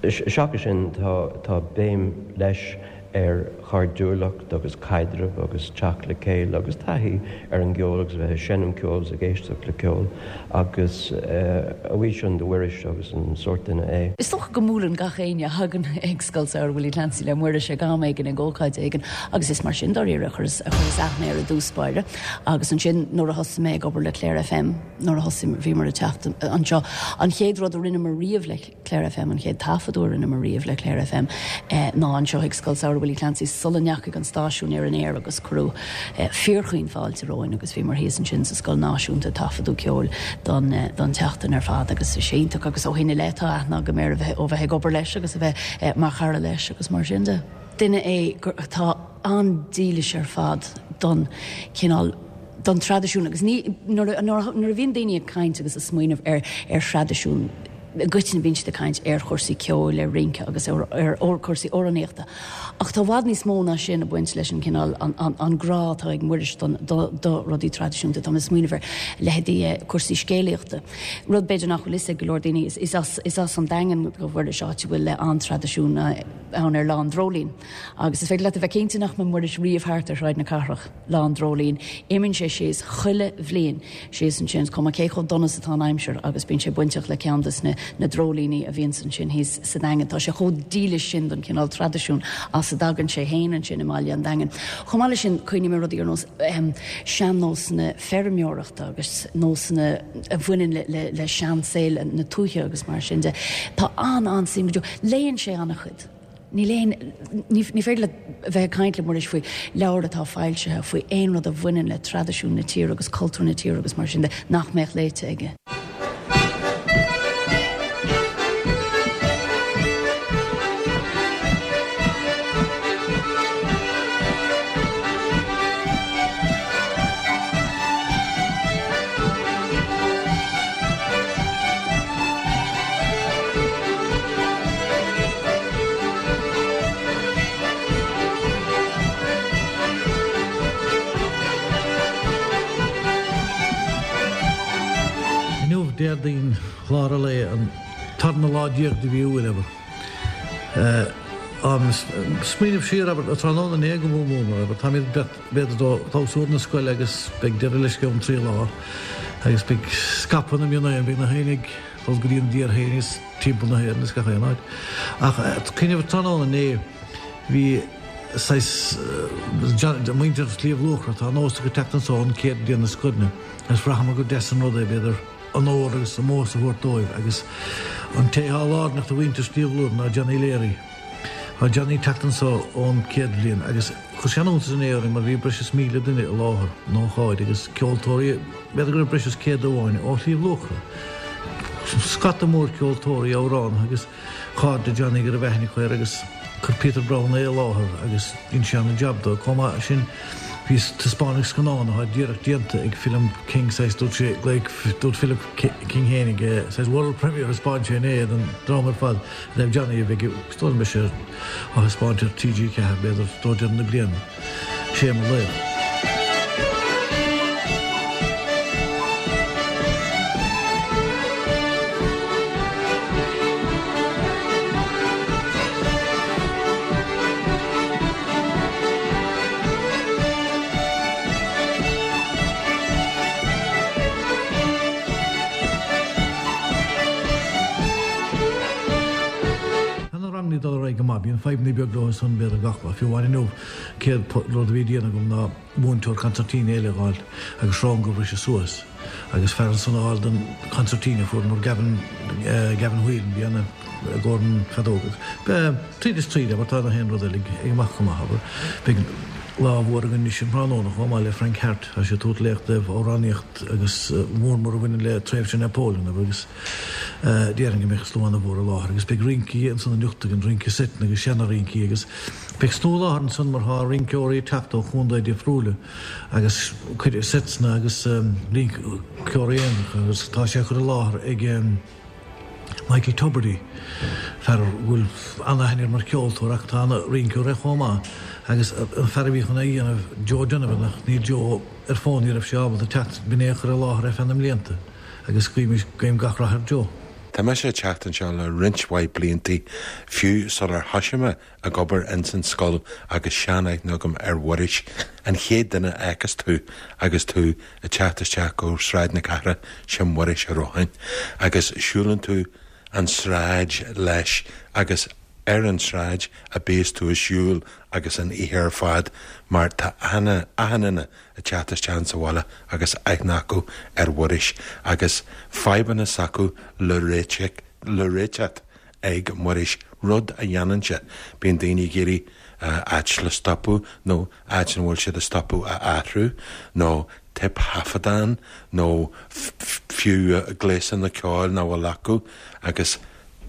Seachas sin, tá béim leis ar chairdiúlacht agus caidreamh agus teacht le chéile agus taithí ar an gceol agus a bheith ag seinm ceoil agus ag éisteacht le ceol agus a bhuí sin do Mhuiris agus an sórt duine é. Is dócha go mbuaileann gach éinne a thagann ag Scoil Samhraidh Willie Clancy le Muiris ag am éigin ag ócáid éigin agus is mar sin dáiríre a chuireas aithne air i dtús báire agus ansin nuair a thosaigh mé ag obair le Clare FM nuair a thosaigh bhíomar ag teacht anseo an chéad rud a rinneamar riamh le Clare FM, an chéad taifeadadh a rinneamar riamh le Clare FM ná anseo ag Scoil Samhraidh Willie Clancy sula ndeachaigh an stáisiún ar an aer agus cuireadh fíorchaoin fáilte romhainn agus bhíomar thíos ansin sa Scoil Náisiúnta ag taifeadadh ceoil don don tseachtain ar fad agus is iontach agus ó shin i leith tá aithne agam air a bheith ó bheith ag obair leis agus a bheith mar chara leis agus mar sin de. Duine é atá an-dílis ar fad don chineál don traidisiún agus ní nuair a nuair a bhíonn daoine ag caint agus ag smaoineamh ar ar thraidisiún i gcoitinne bíonn siad ag caint ar chúrsaí ceoil, ar rince agus ar ar chúrsaí amhránaíochta. Ach tá i bhfad níos mó ná sin ag baint leis an cineál an an an grá atá ag Muiris don do do rudaí traidisiúnta. Tá mé ag smaoineamh ar leithéidí cúrsaí scéalaíochta. Rud b'fhéidir nach bhfuil fhios ag go leor daoine is is as is as an Daingean do Mhuiris áit a bhfuil an-traidisiún ann ar Lá an Dreoilín. Agus is féidir leat a bheith cinnte nach mbeidh Muiris riamh thart ar Shráid na Cathrach Lá an Dreoilín. Imíonn sé síos chuile bhliain síos ansin, is cuma cé chomh dona is atá an aimsir, agus bíonn sé bainteach le ceann des na na dreoilíní a bhíonns ansin thíos sa Daingean. Tá sé chomh dílis sin don chineál traidisiún as a dtagann sé fhéin ansin i mbaile an Daingin. Chomh maith leis sin, cuimhním ar rudaí ar nós sean-nósanna feirmeoireachta agus nósanna a bhaineann le le le seansaol na tuaithe agus mar sin de. Tá an-an-suim go deo. Léann sé an-chuid. Níl aon, ní féidir leat a bheith ag caint le Muiris faoi leabhar atá foilsithe, faoi aon rud a bhaineann le traidisiún na tíre agus cultúr na tíre agus mar sin de, nach mbeadh léite aige. Inniu, Déardaoin, lár an lae, an tarna lá déag de mhí Iúil, abair. Ag smaoineamh siar, abair, tráthnóna inné go mór mór, abair, táimid b'fhéidir do chlabhsúr na scoile agus beidh deireadh leis i gceann 3 lá agus beidh scaipeadh na mionéan, beidh na héin ag dul go dtí an dtír féin is timpeall na hÉireann is gach aon áit. Ach cuimhneamh tráthnóna inné bhí saghas muintir Shliabh Luachra, tá nós acu teacht anso an chéad bhliain na scoileanna agus bhraitheamar gur deas an rud é b'fhéidir onóir agus ómós a thabhairt dóibh agus an té atá lárnach do mhuintir Shliabh Luachra ná Johnny Leary. Tá Johnny ag teacht anso ón chéad bhliain agus chuir sé an-iontas inné orainn mar bhí breis is 1,000 duine i láthair an ócáid agus ceoltóirí, b'fhéidir go raibh breis is 100 amháin ó Shliabh Luachra. Scata mór ceoltóirí, amhránaithe agus cairde Johnny go raibh aithne acu air agus chuir Peter Browne é i láthair agus dhein sé ana-jab dó. Chomh maith sin bhí taispeánadh scannán atá díreach déanta ag Philip King saghas dúirt sé dúirt Philip King fhéinig saghas world premiere a thaispeáin sé inné don dream ar fad. Roimh Johnny a bheidh is dóigh liom beidh sé á thaispeáint ar TG4 b'fhéidir roimh deireadh na bliana. Sé mo laoch. ag dul ar aghaidh go maith. Bíonn fadhbanna beag leo ansan b'fhéidir gach lá. Fiú amháin inniu, céad rud a bhí a déanamh agam ná múinteoir consairtín eile a dh'fháil agus srón a bhriseadh suas agus fear ansan a dh'fháil don chonsairtín a fuaireamar Gavin, Gavin Whelan, bhí ana i gcomhair an feadóg agus tríd is tríd abair tá na haon rud eile ag imeacht go maith abair. Beidh lá mhór againn anois an tráthnóna chomh maith le Frank Harte, tá sé ag tabhairt léacht i dtaobh amhránaíocht agus mór mór a bhaineann le tréimhse Napoleon abair agus déarfainn go mbeidh slua ana-mhór i láthair agus beidh rincí ansan anocht againn, rince seiteanna agus seana-rincí agus beidh slua i láthair ansan mar tá rinceoirí ag teacht ó chontae difriúla agus cuid seiteanna agus rinceoirí aonaracha agus tá sé á chur i láthair ag Michael Tubridy, fear a bhfuil an-aithne air mar cheoltóir ach tá ana-rinceoir é chomh maith agus an fear a bhí chun é a dhéanamh, Joe Donovan ach níl Joe ar fón, ní raibh sé ábalta teacht, b'in é a chuir i láthair é feadh na mblianta agus guímis, guím gach rath ar Joe. Tá mise ag teacht anseo le roinnt mhaith bliantaí, fiú sular thoisigh mé ag obair ins an scoil agus sean-aithne agam ar Mhuiris, an chéad duine a fheiceas tú agus tú ag teacht isteach go Sráid na Cathrach, sin Muiris Ó Rócháin. Agus siúlann tú an tsráid leis agus ar an tsráid a bíos tú ag siúl agus an oíche ar fad mar tá achan achan duine ag teacht isteach insa bhaile agus aithne acu ar Mhuiris agus fadhbanna s'acu le réiteach le réiteach ag Muiris, rud a dhéanann sé. Bíonn daoine ag iarraidh áit le stopadh nó áit ina bhfuil siad ag stopadh a athrú nó téipthaifeadán nó fiú gléasanna ceoil nach bhfuil acu agus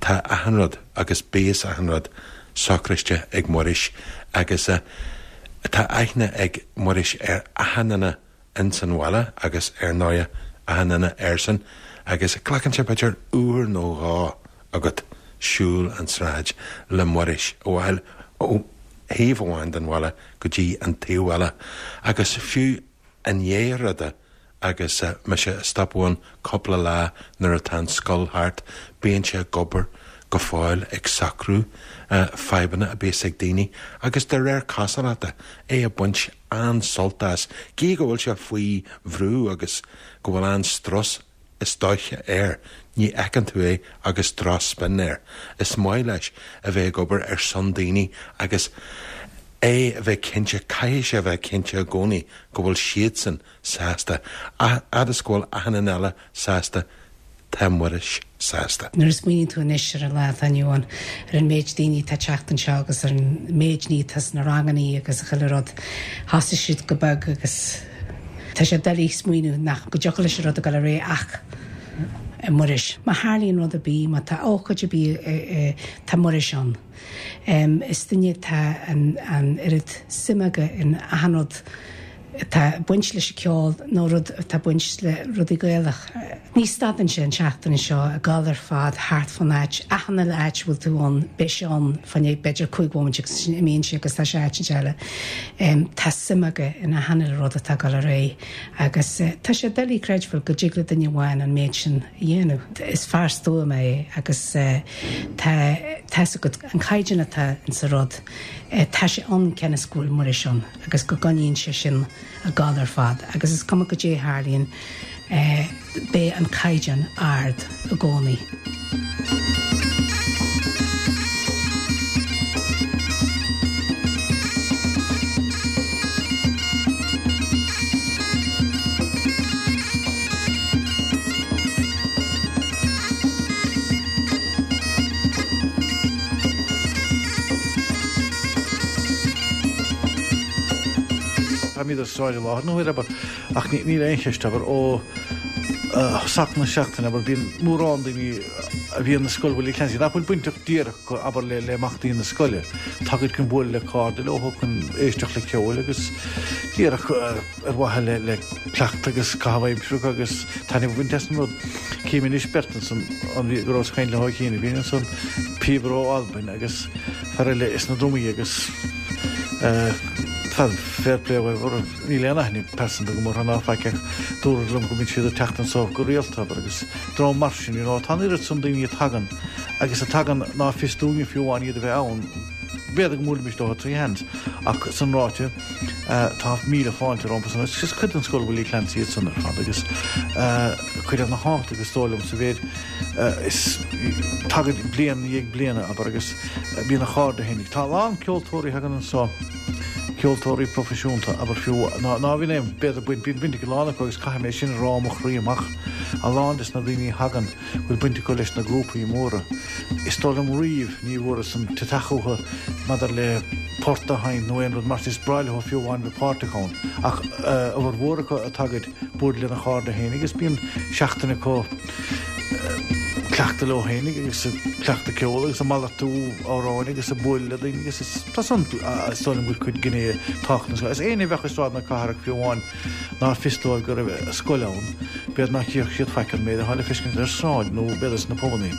tá achan rud agus bíos achan rud socraiste ag Muiris agus tá aithne ag Muiris ar achan duine ins an bhaile agus ar ndóighe achan duine airsean agus glacann sé b'fhéidir uair nó dhó agat siúl an tsráid le Muiris ó ó thaobh amháin den bhaile go dtí an taobh eile agus fiú i ndiaidh ruda agus mise ag stopadh ann cúpla lá nuair atá an scoil thart bíonn sé ag obair go fóill ag socrú fadhbanna a bíos ag daoine agus de réir cosúlachta é ag baint an-sult as, gídh go bhfuil sé faoi bhrú agus go bhfuil an-strus is dóiche air, ní fheiceann tú é agus drochspin air. Is maith leis a bheith ag obair ar son daoine agus é a bheith cinnte, caithfidh sé a bheith cinnte i gcónaí go bhfuil siadsan sásta, fhad is go bhfuil achan duine eile sásta Tá Muiris sásta. Nuair a smaoiníonn tú anois ar an lá atá inniu ann, ar an méid daoine atá ag teacht anseo agus ar an méid ní atá sna rangannaí agus chuile rud, thosaigh siad go beag agus tá sé doiligh smaoineamh nach go dtiocfadh leis an rud a dhul ar aghaidh ach Muiris. Má tharlaíonn rud ar bith, má tá ócáid ar bith, tá Muiris ann. Is duine atá an oiread suime aige in achan rud atá ag baint leis an ceol nó rud atá ag baint le rudaí Gaelach. Ní stadann sé an tseachtain seo ag dul ar fad thart fán áit, achan uile áit a bhfuil tú ann, beidh sé ann fá choinne b'fhéidir 5 bhomaite agus ansin imíonn sé agus tá sé áit eile. Tá suim aige in achan uile rud atá ag dul ar aghaidh agus tá sé doiligh creidbheáil go dtig le duine amháin an méid sin a dhéanamh. Is fear stuama é agus tá tá's agat an caighdeán atá insa rud, tá sé ann cionn is go bhfuil Muiris ann. agus go gcoinníonn sé sin ag gabháil ar fad agus is cuma goidé a tharlaíonn beidh an caighdeán ard i gcónaí. Táimid ar sráid i láthair na huaire, abair, ach níl aon cheist, abair, ó thosach na seachtaine, abair, bíonn mórán daoine a bhíonn i Scoil Willie Clancy nach bhfuil bainteach díreach acu, abair, le himeachtaí na scoile. Tagaid chun bualadh le cairde leo, chun éisteacht le ceol agus díreach ar mhaithe le cleachtadh agus caitheamh aimsire agus taitneamh a bhaint as an rud. Cím anois beirt ansan, an go rabhas ag caint leo cheana féin ansan, píobaire ó Albain agus fear eile sna drumaí agus fear fair play dóibh, níl aon aithne pearsanta agam orthu ná faic ach dúradh liom go mbíonn siad ag teacht anso go rialta abair agus dream mar sin, you know, tá an oiread san daoine a tagann agus a tagann ná fios dúinne fiú amháin iad a bheith ann, b'fhéidir go mbuailfimis leo trí sheans ach san ráite, Tá míle fáilte rompu san. Is cuid den Scoil Willie Clancy iad san ar fad agus cuid ana-thábhachtach is dóigh liom sa mhéid. Is tagaid bliain i ndiaidh bliana, abair, agus bíonn a chairde fhéinig. Tá a lán ceoltóirí a thagann anso, ceoltóirí proifisiúnta, abair, fiú, ná ná bhíonn aon, b'fhéidir, baint, bíonn baint ag a lán acu agus caithfidh mé sin a rá ó mo chroí amach, a lán des na daoine a thagann, bhfuil baint acu leis na grúpaí móra. Is dóigh liom riamh ní bhfuaireas an t-teach uathu maidir le port a sheinnt nó aon rud mar sin. Is breá leo fiú amháin bheith páirteach ann. Ach a bhformhór acu a tagaid bualadh lena chairde fhéinig agus bíonn seachtain acu cleachtadh leo fhéinig agus ag cleachtadh ceoil agus ag malartú amhráin agus ag bualadh le daoine agus is tá san is dóigh liom go bhfuil cuid gné tábhachtach. Is éinne a bheadh i Sráid na Cathrach fiú amháin nár fios dóibh go raibh scoil ann, b'fhéidir nach gcífeadh siad faic an méid atá le feiscint ar sráid nó b'fhéidir sna pubannaí.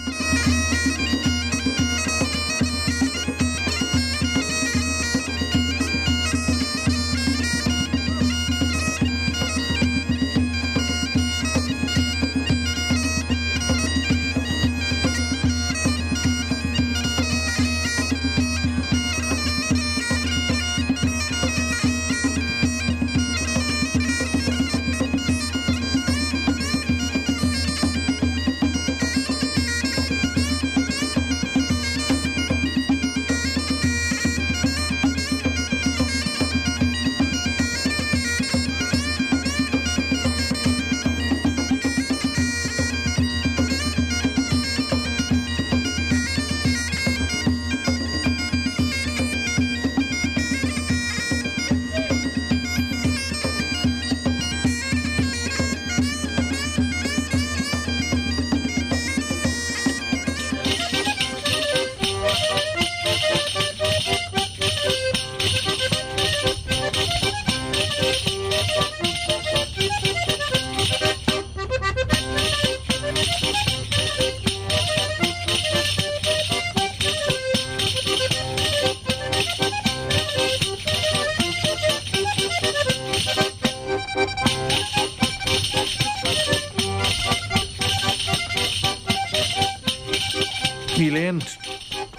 Níl aon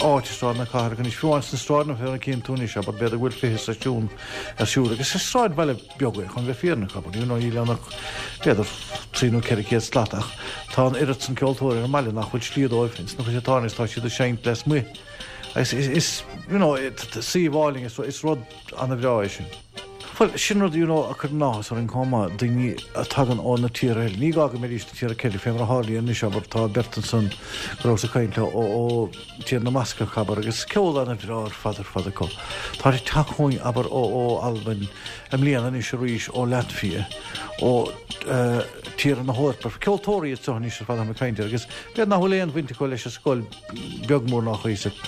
áit i Sráid na Cathrach anois, fiú amháin sna sráideanna fé mar a chíonn tú anois, abair, b'fhéidir go bhfuil 20 seisiún ar siúl agus is sráidbhaile beag é, chun bheith fírinneach, abair, you know, níl ann ach b'fhéidir 3 nó 400 slat ach tá an oiread san ceoltóirí ar an mbaile nach bhfuil slí dóibh ins na chuid atá ann agus tá siad ag seinnt lasmuigh agus is, you know, suíomh álainn, is rud ana-bhreá é sin. Bhuel, sin rud, you know, a chuireann áthas orainn chomh maith, daoine a tagann ó na tíortha eile. Ní gá go mbeidís na tíortha Ceilteacha, fé mar a tharlaíonn anois, abair, tá beirt ansan go rabhas ag caint leo ó, ó Tír na mBascach, abair, agus ceol ana-bhreá ar fad ar fad acu. Tá ag teacht chugainn, abair, ó, ó Albain i mbliana anois arís, ó Latvia, ó eh, tíortha na hEorpa. Ceoltóirí iad seo anois ar fad atáim ag caint air, agus b'fhéidir nach bhfuil aon bhaint acu leis an scoil, beag mór ná cuíosach.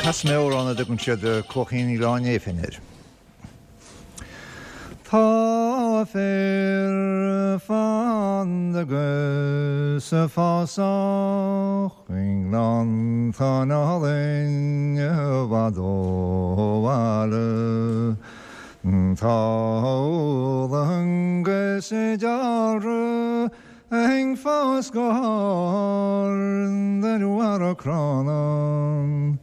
Casfaidh mé amhrán a dtugann siad Cuaichín Oileán Néifinn air. Tá féar fanda 'gus fásach i ngleanntáin álainn i bhfad ó bhaile. Tá olann 'gus dealramh ag fás go hard ar bharra crann.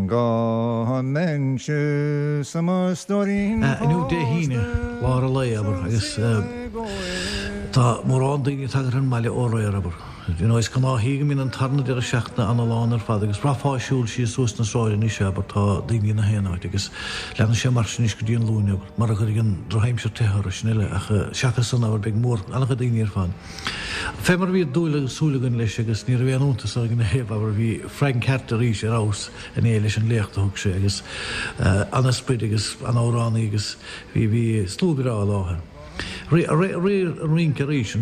Dá mbeinnse sa mo stóirín Inniu Dé hAoine, lár an lae, abair, agus tá mórán daoine ag tagairt ar an mbaile ó aréir, abair. You know, is gnáthí go mbíonn an tarna deireadh seachtaine ana-lán ar fad agus bhraithfeá ag siúl síos suas na sráide anois, abair, tá daoine 'na haon áit agus leanfaidh sé mar sin anois go dtí an Luan, abair, mara gcuirfidh an drochaimsir teitheadh orthu, sin uile, ach seachas san, abair, beidh mór, an-chuid daoine ar fad. Fé mar a bhí dúil agus súil againn leis agus ní raibh aon iontas orainn ina thaobh, abair, bhí Frank Harte arís ar fheabhas inné leis an léacht a thug sé agus ana-sprid agus ana-amhránaí agus bhí, bhí slua breá i láthair. Rí an rince arís,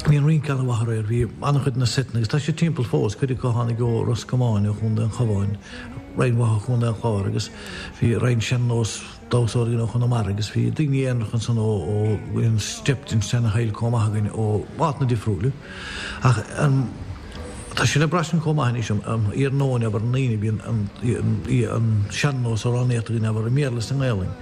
bhí an rince an-mhaith aréir, bhí an-chuid de na seiteanna, agus tá siad timpeall fós, cuid acu a tháinig ó Ros Comáin, ó Chontae an Chabháin, roinnt mhaith ó Chontae an Chláir agus bhí roinnt sean-nós damhsóirí ó Chonamara agus bhí daoine aonaracha ansan ó bhí an step den seana-shaol chomh maith againn ó áiteanna difriúla. Ach tá sé le braistint chomh maith anois an iarnóin abair an Aoine bíonn an sean-nós amhránaíocht againn abair i mBéarla is i nGaelainn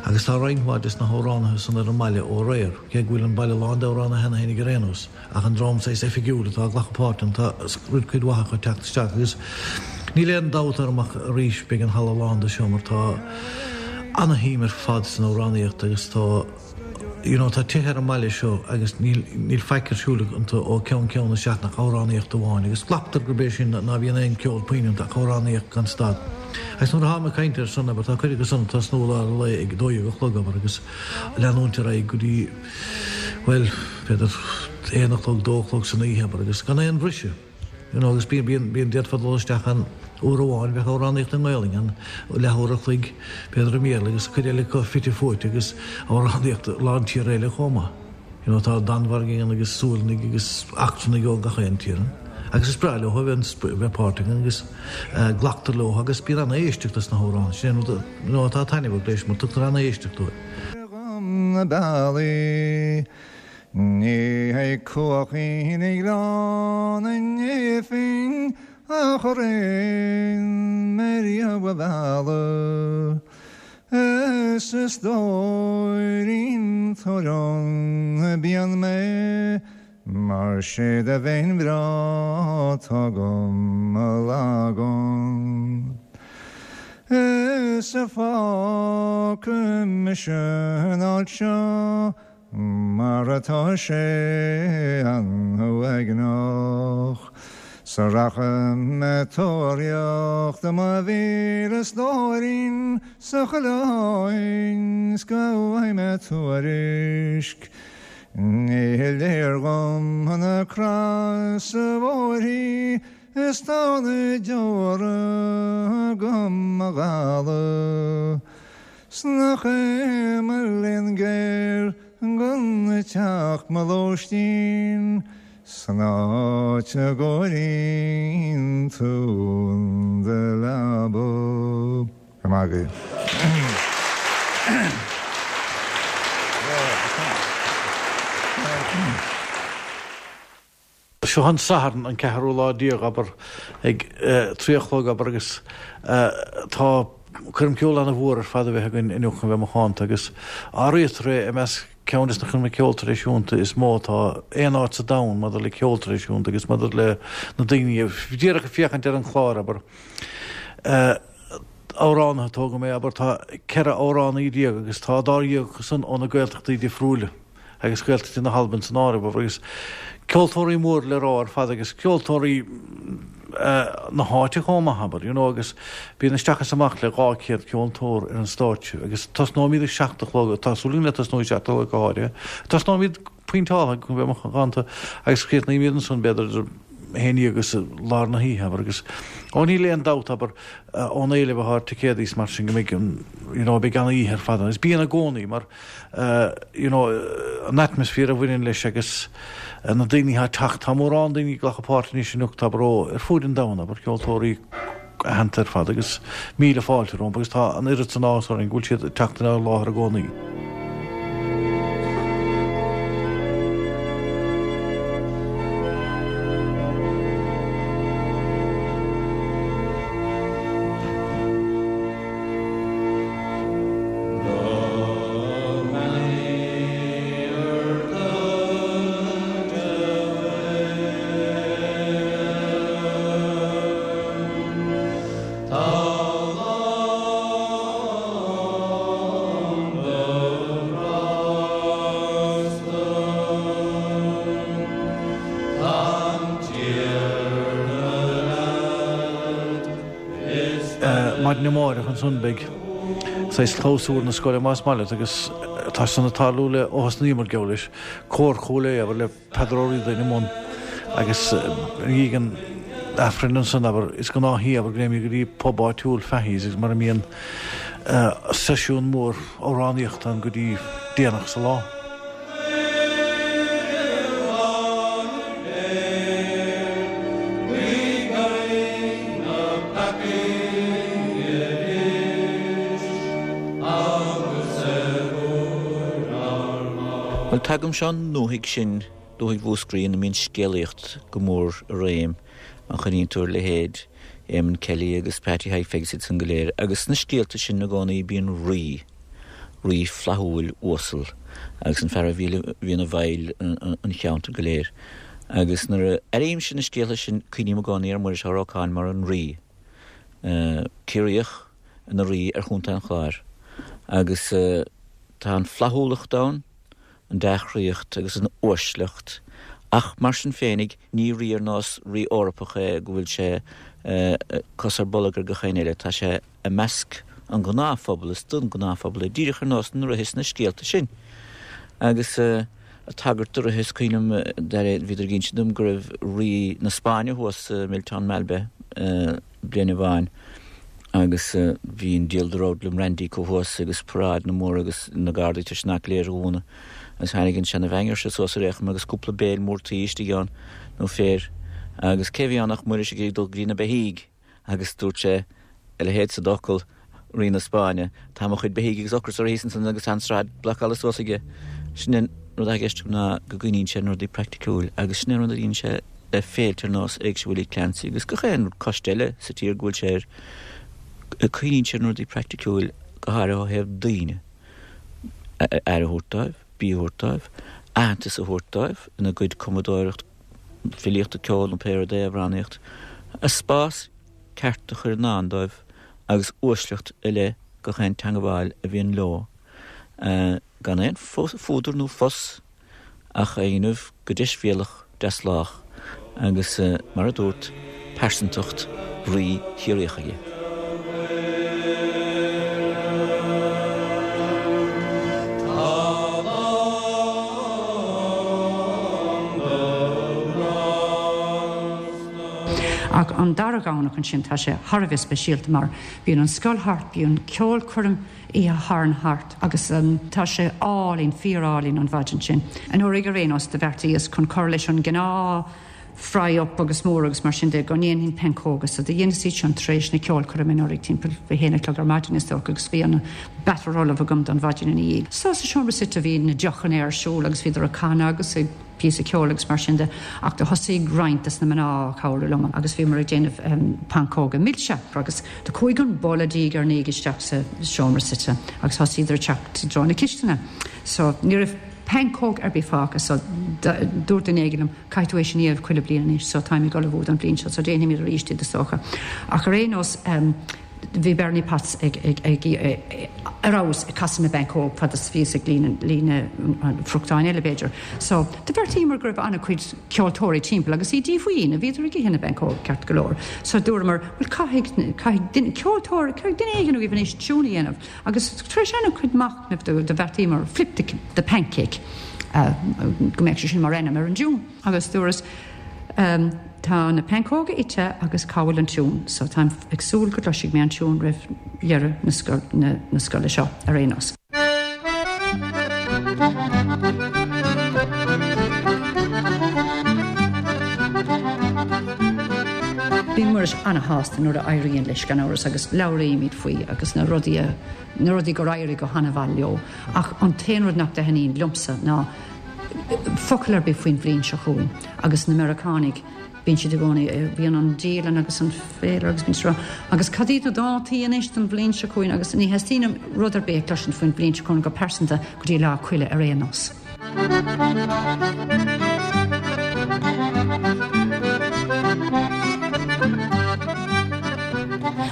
agus tá roinnt mhaith des na hamhránaithe san ar an mbaile ó aréir, cé go bhfuil an baile lán d'amhránaithe cheana féinig ar aon nós ach an dream saghas oifigiúil atá ag glacadh páirt ann tá cuid mhaith acu ag teacht isteach agus níl aon dabht orm ach arís beidh an halla lán de seo mar tá ana-shuim ar fad san amhránaíocht agus tá You know, tá tithe ar an mbaile seo agus níl, níl faic ar siúl iontu ó cheann ceann na seachtaine ach amhránaíocht amháin agus glactar gurb é sin ná bíonn aon ceol puinn iontu ach amhránaíocht gan stad. Agus nuair atáim ag caint air san, abair, tá cuid acu san ag tosnú i lár an lae ag a 12 a chlog, abair, agus leanúint ar aghaidh go dtí, bhuel, b'fhéidir aon a chlog, dó a chlog san oíche, abair, agus gan aon bhriseadh. You know, agus bíonn, bíonn, bíonn, d'fhéadfá dul isteach ann uair amháin, bheadh amhránaíocht i nGaelainn ann, leathuair a chloig, b'fhéidir i mBéarla agus cuid eile acu fite fuaite agus amhránaíocht a lán tíortha eile chomh maith. You know, tá Danmhairgigh ann agus Sualannaigh agus eachtrannaigh ó gach aon tír ann. Agus is breá leo a bheith, a bheith páirteach ann agus glactar leo agus bíonn an-éisteacht leis na hamhráin. Sin é an rud, you know, atá taitneamhach leis mar tugtar an-éisteacht dóibh. na bealaí. Ní hé cuachín Ghleann an Néifinn ach raon mé riamh a mhealladh Is a stóirín tar liom bíonn mé Mar sé do mhéin bhreá 'tá agam a lagan Is a fágfaidh mise an áit seo Mar atá sé an-uaigneach 's rachaidh mé tóraíocht i mo mhíle stóirín sa choileáin 's go bhfaighidh mé tuairisc. Ní léir dhom na crasa bhóithrí is tá na deora agam a dhalladh. 'S nach é mo léan géar gan teach mo lóistín san áit a gcóiríonn tú do leaba. Go maith agaibh. Seo an Satharn, an ceathrú lá déag, abair, ag 3 a chlog, abair, agus tá coirm ceoil ana-mhór ar fad a bheith againn inniu chun bheith macánta agus áirítear é i measc ceann de na coirmeacha ceoil traidisiúnta is mó atá aon áit sa domhan maidir le ceol traidisiúnta agus maidir le na daoine díreach ag féachaint ar an chlár, abair. Amhránaithe, tógfaidh mé, abair, tá 14 amhránaí agus tá dáréag acu san ó na Gaeltachtaí difriúla. agus Gaeltachtaí na hAlban san áireamh, agus ceoltóirí mór le rá ar fad agus ceoltóirí na háite chomh maith, abair, you know, agus bíonn isteach is amach le 200 ceoltóir ar an stáitse agus tosnóimid ag 7 a chlog, tá súil againn le tosnú ag 7 a chlog go háirithe, tosnóimid pointeáltha go mbeidh macánta agus críochnaímid ansan b'fhéidir idir 11 agus lár na hoíche, abair, agus ó níl aon dabht, abair, ón éileamh atá ar ticéadaí is mar sin go mbeidh an, you know, beidh an-oíche ar fad ann agus bíonn i gcónaí mar you know, an atmaisféar a bhaineann leis agus na daoine atá ag teacht. Tá mórán daoine ag glacadh páirt anois anocht, abair, ó ar fuaid an domhain, abair, ceoltóirí aitheanta ar fad agus míle fáilte rompu agus tá an oiread san áthas orainn go bhfuil siad ag teacht inár láthair i gcónaí. Maidin amárach ansan beidh saghas clabhsúr na scoile más maith leat agus tá san ag tarlú le ó thosnaíomar geall leis, Cór Chúil Aodha abair le Peadar Ó Ríordáin i mbun agus i ndiaidh an Aifrinn ansan abair is gnáth í abair go dtéimid go dtí pub áitiúil Fahy's agus mar a mbíonn. Seisiún mór amhránaíochta ann go dtí déanach sa lá. Bhuel, tagaimse ón ndúthaigh sin, dúthaigh Mhúscraí, ina mbíonn scéalaíocht go mór i réim, má chuimhníonn tú ar leithéid Eamon Kelly agus Patty Thaidhg Pheig is iad san go léir, agus sna scéalta sin i gcónaí bíonn rí, rí flaithiúil uasal, agus an fear a bhíonn i bhfeighil an cheantair go léir. Agus nuair a airímse na scéalta sin cuimhním i gcónaí ar Mhuiris Ó Rocáin mar an rí, Ciarraíoch ina rí ar Chontae an Chláir. Agus tá an flaithiúlacht ann, an dea-chroíocht agus an uaisleacht, ach mar sin féinig, ní rí ar nós rí Eorpach é go bhfuil sé cos ar bolg ar gach éinne eile, tá sé i measc an ghnáthphobail, is don ghnáthphobal é, díreach ar nós na ríthe sna scéalta sin. Agus ag tagairt do ríthe, is cuimhin liom, bhíodar ag inse dom go raibh rí na Spáinne thuas i Milltown Malbay, bliain amháin agus bhí an diabhal de roudlam randy acu thuas agus paráideanna móra agus na gardaí tar éis an áit go léir a dhúnadh agus tháinig an seana-mheaingear seo suas ar aon chuma agus cúpla béil mór tuí istigh ann nó féir agus cé bhí ann ach Muiris ag iarraidh dul go dtí na beithígh agus dúirt sé a leithéid sa d'fhocal Rí na Spáinne, tá mo chuid beithígh agus ocras orthu thíos ansan agus tá an tsráid blocáilte suas aige. Sin é an rud atá i gceist agam ná go gcuimhníonn sé ar na rudaí praiticiúil agus sin é an rud a dhéanann sé le féilte ar nós Éigse Willie Clancy agus gach aon coiste eile sa tír go bhfuil sé air. Cuimhníonn sé ar na rudaí praiticiúil go háirithe ó thaobh daoine, aire a thabhairt dóibh, bia a thabhairt dóibh, aitheantas a thabhairt dóibh ina gcuid cumadóireacht, filíochta, ceoil nó pé rud é, amhránaíocht, a spás ceart a chur i ndán dóibh agus uaisleacht i leith gach aon teangabháil a bhíonn leo, gan aon fuadar nó fus ach a dhéanamh go deisbhéalach deaslách agus, mar a dúrt, pearsantacht Rí Chiarraíoch aige. Ach an dara Dhomhnach ansin tá sé thar a bheith speisialta mar bíonn an scoil thart, bíonn ceolchoirm Oíche Shathairn thart agus tá sé álainn, fíor-álainn an mhaidin sin. Anuraidh ar aon nós do bheartaíos chun cur leis an gnáth fry up agus mór agus mar sin de go ndéanfainn pancóga so do dheineas iad sin tar éis na ceolchoirme anuraidh timpeall a haon a chlog ar maidin is dócha agus bhí an batter ullamh agam don mhaidin ina dhiaidh. So sa seomra suite bhí na deochanna ar siúl agus bhíodar ag canadh agus ag píosa ceoil agus mar sin de ach do thosaigh roinnt des na mná a cabhrú liom agus bhíomar ag déanamh pancóga milse agus do chuaigh an boladh diaidh ar ndiaidh isteach sa seomra suite agus thosaíodar ag teacht i dtreo na cistine so ní raibh pancóg ar bith fágtha so dúirt duine éigin liom caithfidh tú é sin a dhéanamh chuile bliain anois so táim ag ullmhú don bhliain seo so déanfaimid arís iad is dócha ach ar aon nós Bhí Bernie Potts ag ar fheabhas ag casadh na bpancóg fad is a bhíos ag líonadh na friochtáin eile b'fhéidir. So, do bheartaíomar go raibh an-chuid ceoltóirí timpeall agus iad díomhaoin, bhíodar ag ithe na bpancóg ceart go leor. So dúramar, bhuel caithfidh, caithfidh duine, ceoltóir, caithfidh duine éigin agaibh anois tiún a dhéanamh. Agus tar éis an-chuid machnaimh do bheartaíomar Flip the, the Pancake, go mbeadh sé sin mar ainm ar an dtiún. Agus dúras, Tá na pancóga ite agus cá bhfuil an tiún? So táim ag súil go gcloisfidh mé an tiún roimh dheireadh na scoile seo ar aon nós. Bíonn Muiris ana-shásta nuair a éiríonn leis, gan amhras, agus labhraímid faoi agus na rudaí a, na rudaí gur éirigh go hana-mhaith leo. Ach an t-aon rud nach dtaitníonn liomsa ná focal ar bith faoin bhliain seo chugainn agus na Meiriceánaigh, bíonn siad i gcónaí, bíonn an dialann agus an féilire agus bíonn siad ag rá, agus cad iad na dátaí anois don bhliain seo chugainn agus ní theastaíonn uaim rud ar bith a chloisint faoin bhliain seo chugainn go pearsanta go dtí Lá Coille ar aon nós.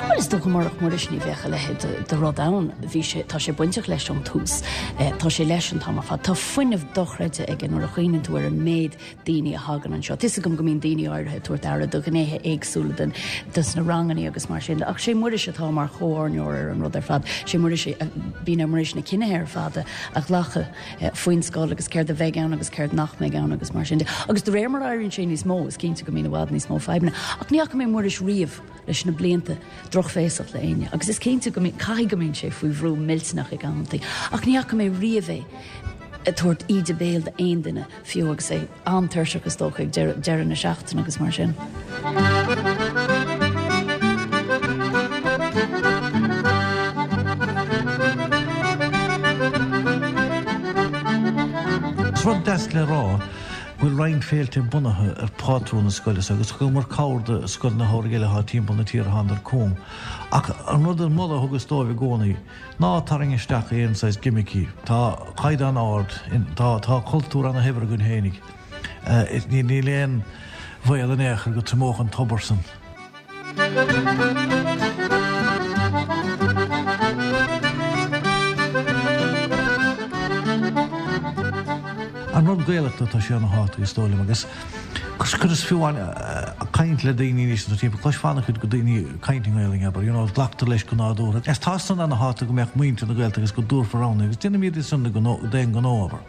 Bhuel, is dócha murach Muiris ní bheadh a leithéid de rud ann. Bhí sé, tá sé bainteach leis ón tús. Tá sé leis an t-am ar fad. Tá fuinneamh dochreidte aige nuair a chuimhníonn tú ar an méid daoine a thagann anseo. Tá 'fhios agam go mbíonn daoine áirithe ag tabhairt aire do ghnéithe éagsúla den, des na rangannaí agus mar sin de, ach sé Muiris atá mar chomhordaitheoir ar an rud ar fad. Sé Muiris, bíonn ar Muiris na cinnithe ar fad a ghlacadh faoin scoil agus céard a bheidh ann agus céard nach mbeidh ann agus mar sin de. Agus de réir mar a éiríonn sé níos mó, is cinnte go mbíonn i bhfad níos mó fadhbanna. Ach ní fhaca mé Muiris riamh leis na blianta. drochbhéasach le éinne agus is cinnte go mbíonn, caithfidh go mbíonn sé faoi bhrú millteanach ag amantaí ach ní fhaca mé riamh é ag tabhairt íde béil d'aon duine, fiú agus é an-tuirseach is dócha ag deireadh na seachtaine agus mar sin. Is rud deas le rá go bhfuil roinnt féilte bunaithe ar phátrún na scoile seo agus thugamar cabhair do scoileanna samhraidh eile atá timpeall na tíre thánadar chugam. Ach an rud an moladh a thugas dóibh i gcónaí, Ná tarraing isteach aon saghas gimicí. Tá caighdeán ard, tá tá cultúr ana-shaibhir againn fhéinig. Níl aon bhaol in aon chor go triomódh an tobar san. An rud Gaelachta tá sé ana-thábhachtach is dóigh liom agus Cuireas fiú amháin caint le daoine anois sa timpeall, cloisfeá an-chuid de daoine ag caint i nGaelainn, abair, you know, glactar leis go nádúrtha. Is tá san ana-thábhachtach go mbeadh muintir na Gaeltachta agus go dtabharfar ann é agus déanaimid é san d'aon ghnó, abair.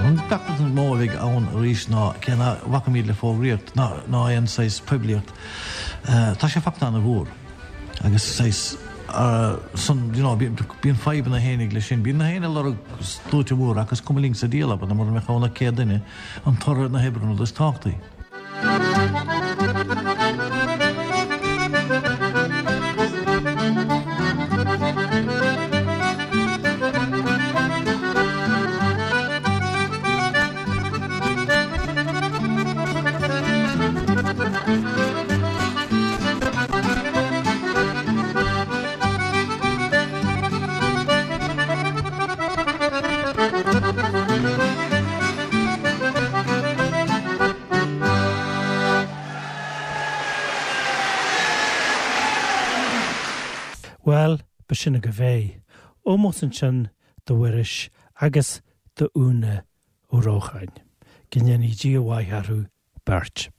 An feachtas is mó a bheidh ann arís ná cé ná bhacaimid le fógraíocht ná aon saghas poiblíocht, tá sé fachta ana-mhór. Agus saghas san, you know, bíonn fadhbanna fhéinig leis sin. Bíonn na héinne ag lorg sluaite móra ach is cuma linn sa diabhal, abair, mura mbeadh ann ach 100 duine, an toradh na hoibre an rud is tábhachtaí. Bhuel, b'shin agaibh é. Ómós ansin do Mhuiris agus do Úna Ó Rócháin. Go ndéanaí Dia mhaith orthu beirt.